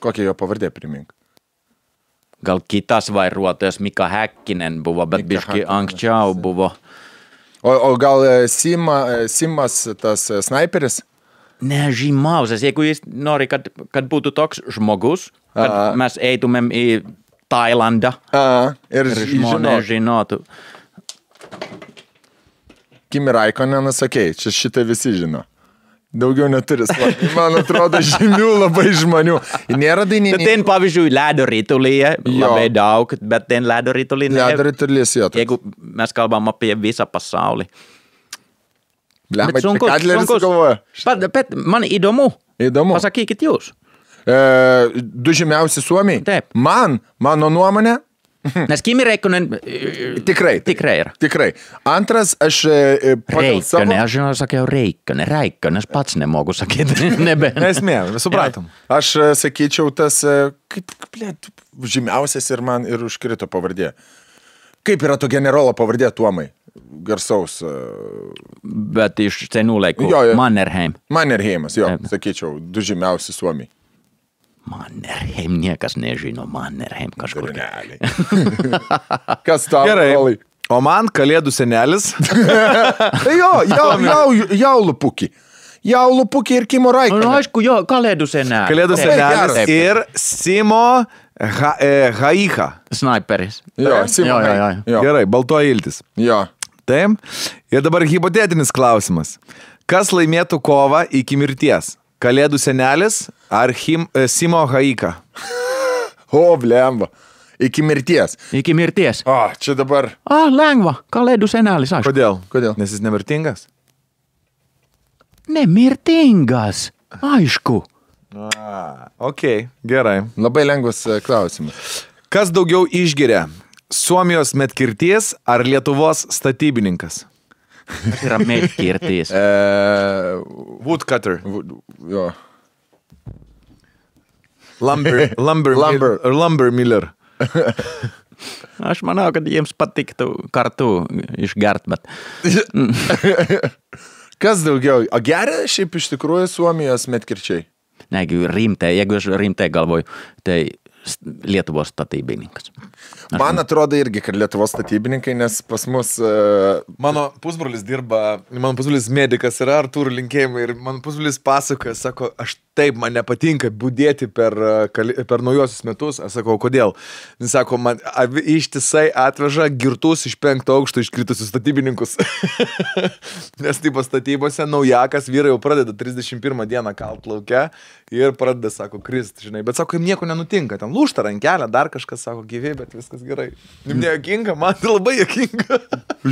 Kokia jo pavardė, primink? Gal kitas vairuotojas Mika Häkkinen buvo, bet biški anksčiau buvo. O gal Simas tas snaiperis? Ne, žymiausias. Jeigu jis nori, kad būtų toks žmogus, kad mes eitumėm į Tailandą. Ir žmonės žinotų. Kimi Räikkönenas, sakei, čia šitą visi žino. Daugiau neturi. Man atrodo, žymių labai žmonių. Nėra dainininkų. Bet ten, pavyzdžiui, ledo ritulyje labai daug, bet ten ledo ritulyje... Ledo ritulys, jo. Jeigu mes kalbam apie visą pasaulį. Blemba, čia Kadleris galvoja. Bet man įdomu. Įdomu. Pasakykit jūs. Du žymiausi Suomiai. Taip. Mano nuomonė. Nes Kimi Räikkönen Tikrai yra. Tikrai. Antras, aš pagal savo... Räikkönen, aš žinau, sakiau Räikkönen, aš pats nemogu sakyti. Nesmė, supratom. Aš sakyčiau tas, žymiausias ir man ir užkrito pavardė. Kaip yra to generolo pavardė Tuomai? Garsaus. Bet iš senų laikų. Mannerheimas, jo, sakyčiau, du žymiausi Suomiai. Mannerheim, niekas nežino Mannerheim kažkur. Kas tau? Gerai. O man Kalėdų senelis. Jaulupukį. Jaulupukį ir Kimo Räikkönen. Nu, aišku, jo, Kalėdų senelis. Kalėdų senelis ir Simo Haiha. Sniperis. Jo, Simo. Gerai, baltoji iltis. Jo. Taip. Ir dabar hipotetinis klausimas. Kas laimėtų kovą iki mirties? Kalėdų senelis ar Simo Haiha? O, blemba. Iki mirties. Iki mirties. O, čia dabar. Lengva. Kalėdų senelis, aišku. Kodėl? Nes jis nemirtingas? Nemirtingas. Aišku. Okei, gerai. Labai lengvas klausimas. Kas daugiau išgeria? Suomijos medkirties ar Lietuvos statybininkas? Kas yra medkirtis? Woodcutter. Jo. Lumber miller. Aš manau, kad jiems patiktų kartu išgert, bet... Kas daugiau? O geria šiaip iš tikrųjų Suomijos medkirčiai? Jeigu aš rimtai galvoju, tai Lietuvos statybininkas. Man atrodo irgi, kad Lietuvos statybininkai, nes pas mus... Mano pusbrolis medikas yra, Artūrų linkėjimai, ir mano pusbrolis pasakoja, sako, aš taip, man nepatinka budėti per naujosius metus. Aš sakau, kodėl? Jis sako, man ištisai atveža girtus iš 5 aukšto iškritusius statybininkus. Nes taip statybose naujakas vyrai jau pradeda 31 dieną kalt lauke ir pradeda, sako, krist, žinai. Bet sako, jam nieko nenutinka. Ten lūžta rankelė, dar kažkas sako, gyvi, bet viskas gerai. Jums nejokinga, man tai labai jokinga.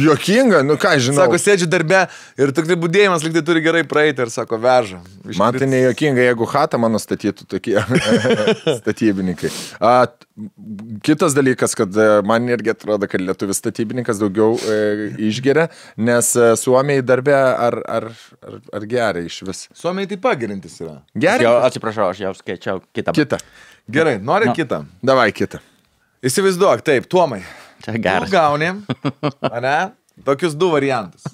Jokinga? Nu ką, žinau. Sako, sėdžiu darbe ir tik tai budėjimas lyg tai turi gerai praeiti ir sako, veža. Man tai nejokinga, jeigu chatą mano statytų tokie statybininkai. Kitas dalykas, kad man irgi atrodo, kad lietuvis statybininkas daugiau išgeria, nes Suomiai darbe ar geria iš vis. Suomiai taip pagerintis yra. Geria? Atsiprašau, aš jau skaičiau kitą. Gerai, nori kitą? Davai kitą. Įsivaizduok, taip, Tuomai. Čia geras. Tu gauni, ane, tokius 2 variantus.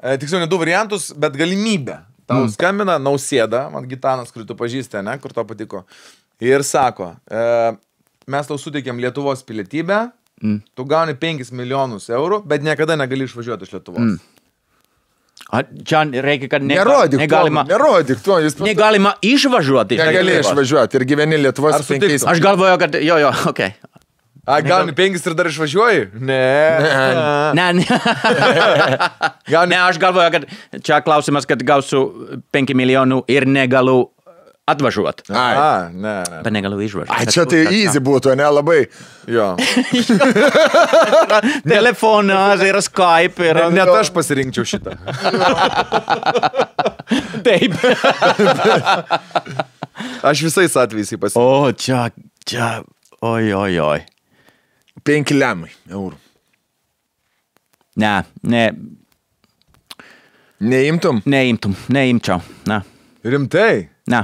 Tiksliau, ne 2 variantus, bet galimybę. Tau skambina Nausėda, man Gitanas, kurį tu pažįsti, ne, kur to patiko. Ir sako, mes tau suteikėm Lietuvos pilietybę, tu gauni 5 milijonus eurų, bet niekada negali išvažiuoti iš Lietuvos. Čia reikia, kad nerodyk to. Negalima išvažiuoti. Negali išvažiuoti ir gyveni Lietuvos 5. Aš galvoju, kad okei. Gauni 5 ir dar išvažiuoji? Ne. Ne, aš galvoju, kad čia klausimas, kad gausiu 5 milijonų ir negaliu atvažiuoti. Ne. Bet negaliu išvažiuoti. Čia tai easy būtų, ne labai. Jo. Telefonas ir Skype. Net aš pasirinkčiau šitą. Taip. Aš visais atvejais pasirinkčiau. O, čia. Oi. 5 lemai eurų. Ne. Neimčiau. Ne. Rimtai? Ne.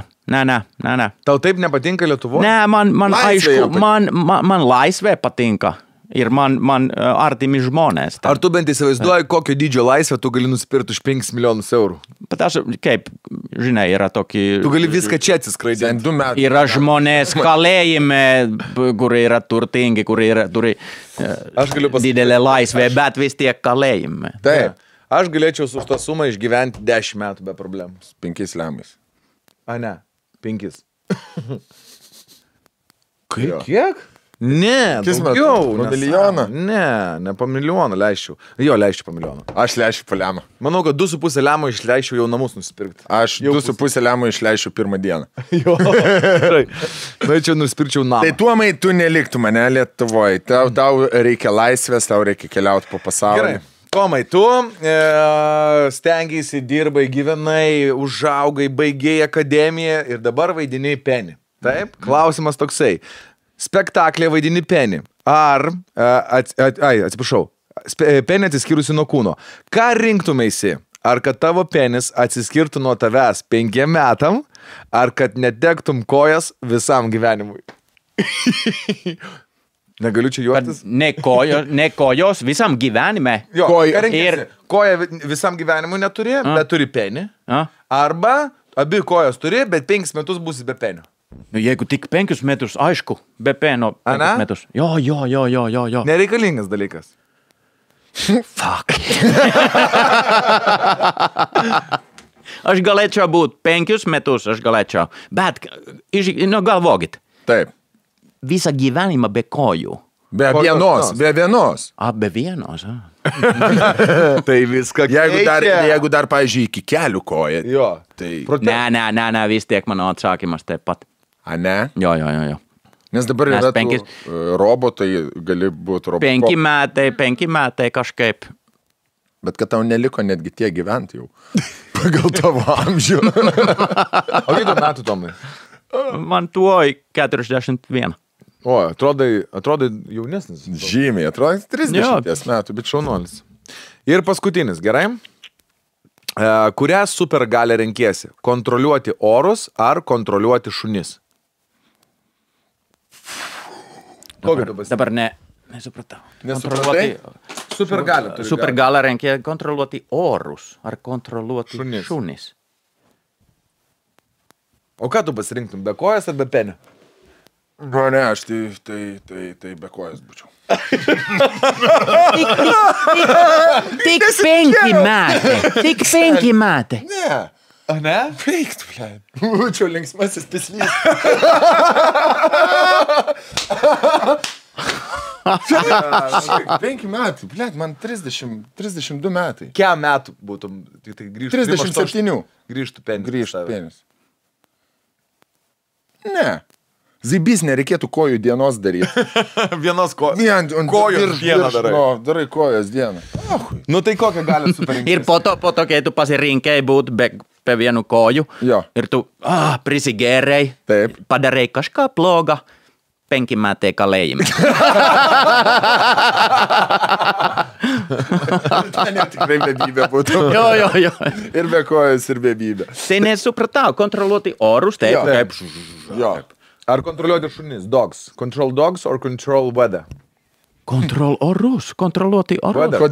Tau taip nepatinka Lietuvoje? Ne, man aišku, man laisvė patinka. Ir man artimi žmonės. Ar tu bent įsivaizduoji, kokio dydžio laisvę tu gali nusipirkti už 5 milijonus eurų? Bet aš, kaip, žinai, yra tokį... Tu gali viską čia atsiskraidinti. Yra žmonės kalėjime, kurie yra turtingi, kurie turi didelę laisvę, bet vis tiek kalėjime. Taip. Aš galėčiau už tą sumą išgyventi 10 metų be problemų. 5 lemais. Ne, 5. Kiek? Ne, daugiau. Po milijoną? Ne po milijoną leisčiau. Jo, leisčiau po milijoną. Aš leisčiau po lemą. Manau, kad 2,5 lemo išleisčiau jau namus nusipirkti. Aš 2,5 lemą išleisčiau pirmą dieną. Jo, gerai. Norėčiau nusipirkčiau namą. Tai tuomai tu neliktų mane Lietuvoje. Tau reikia laisvės, tau reikia keliauti po pasaulį. Gerai. Tomai, tu stengiasi, dirbai, gyvenai, užaugai, baigėjai akademiją ir dabar vaidiniai Penį. Taip? Klausimas toksai. Spektaklė vaidini Penį. Ar, atsiprašau, Penį atsiskyrusi nuo kūno. Ką rinktumėsi? Ar kad tavo penis atsiskirtų nuo tavęs 5 metam, ar kad netektum kojas visam gyvenimui? Negaliu čia juoktis. Ne kojos visam gyvenime. Jo, koja visam gyvenimui neturi, bet turi penį. Arba abi kojas turi, bet 5 metus būsi be penio. Nu, jeigu tik 5 metus, aišku, be peno 5 metus. Jo. Nereikalingas dalykas. Fuck. Aš galėčiau būt 5 metus, aš galėčiau. Bet, galvokit. Taip. Visą gyvenimą be kojų. Be vienos. Be vienos. Tai viską jeigu dar, pavyzdžiui, iki kelių koja. Jo. Tai... Ne, vis tiek mano atsakymas taip pat. A, ne? Jo. Nes dabar yra robotai, gali būti robotai. 5 metai kažkaip. Bet kad tau neliko netgi tie gyventi jau. Pagal tavo amžių. O kiek metų, Tomai? Man tuoj 41. O, atrodai jaunesnis. Žymiai, atrodai 30 metų, bet šaunuolis. Ir paskutinis, gerai? Kurią supergalę renkiesi? Kontroliuoti orus ar kontroliuoti šunis? Dabar nesupratau. Nesupratai? Supergalę renkia kontroliuoti orus ar kontroliuoti šunis. O ką tu pasirinktum, be kojas ar be penio? Ne, aš tai be kojas būčiau. Tik 5 metai. Tik 5 metai. Ne. A, ne? Veiktų, blėt. Būčiau linksmasis pislys. 5 metų, blėt, man 32 metai. Kiek metų būtum? Tai grįžtų 37. Grįžtų penis. Ne. Zaibys nereikėtų kojų dienos daryti. Vienos kojos. Kojos dieną darai. Darai kojos dieną. Nu tai kokią gali superinkti? Ir po to, kai tu pasirinkai būt be vienu koju, ir tu prisigėrei, padarei kažką bloga, 5 metai kalėjime. Ten jau tikrai bebybė būtų. Jo. Ir be kojas, ir bebybė. Tai nesupratau, kontroliuoti orus, taip. Jo. Ar kontroliuoti šunis? Dogs. Control dogs or control weather? Kontroliuoti orus.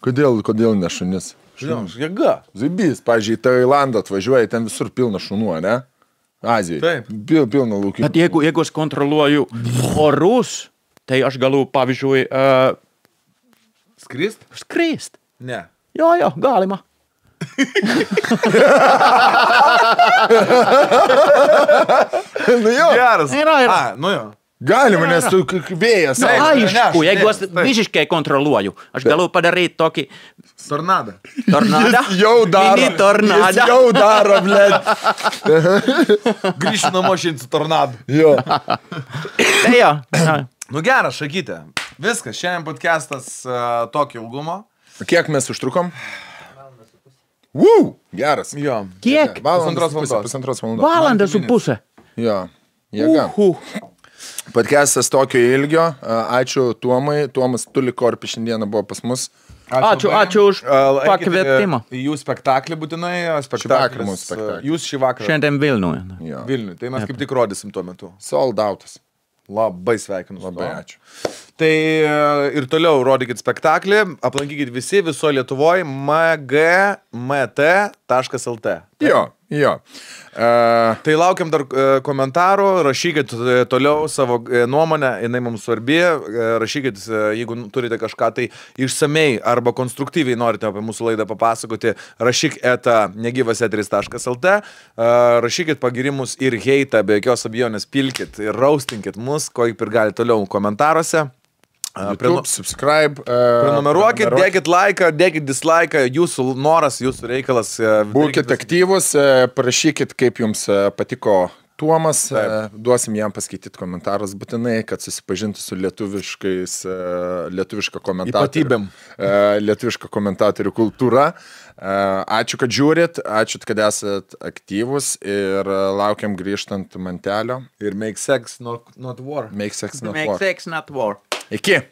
Kodėl ne šunis? Jėga. Zaibys, pavyzdžiui, Tailandą atvažiuoja, ten visur pilna šunų, ne? Azijai. Taip. Pilna laukimų. Bet jeigu aš kontroliuoju orus, tai aš galiu, pavyzdžiui, Skrist? Ne. Jo, galima. Nu jo. Geras. Nu jo. Galima, nes tu vėjas. Aišku, jeigu aš visiškai kontroliuoju, aš galiu padaryti tokį... Tornadą. Jis jau daro, blėt. Grįšiu namo šiandien su tornadu. Jo. Tai jo. Nu geras, Šakytė. Viskas, šiandien podcastas tokio ilgumo. Kiek mes užtrukom? Geras. Jo. Kiek? Pusantros valandos. Valandą su pusę. Jo. Jėga. Podcastas tokio ilgio. Ačiū Tuomai. Tuomas Tulikorpi šiandieną buvo pas mus. Ačiū už pakvietimą. Jų spektaklį būtinai. Spektaklis. Jūs šį vakarą. Šiandien Vilniuje. Vilniuje. Tai mes kaip tik rodysim tuo metu. Sold outas. Labai sveikinu. Labai ačiū. Tai ir toliau rodykit spektaklį. Aplankykit visi, viso Lietuvoje. MGMT lt. Jo. Tai laukiam dar komentarų, rašykit toliau savo nuomonę, jinai mums svarbi, rašykit, jeigu turite kažką tai išsamei arba konstruktyviai norite apie mūsų laidą papasakoti, rašyk @negyvaseteris.lt, rašykit pagirimus ir heitą, be jokios abejonės pilkit ir raustinkit mus, ko ir gali toliau komentaruose. YouTube, subscribe. Prenumeruokit, dėkit laiką, dėkit dislaiką, jūsų noras, jūsų reikalas. Būkit aktyvus, parašykit, kaip jums patiko Tuomas, duosim jam paskaityti komentarus būtinai, kad susipažintų su lietuviška komentatorių kultūra. Ačiū, kad žiūrit, ačiū, kad esat aktyvus ir laukiam grįžtant Mantelio. Ir make sex not war. Make sex not war. Iki.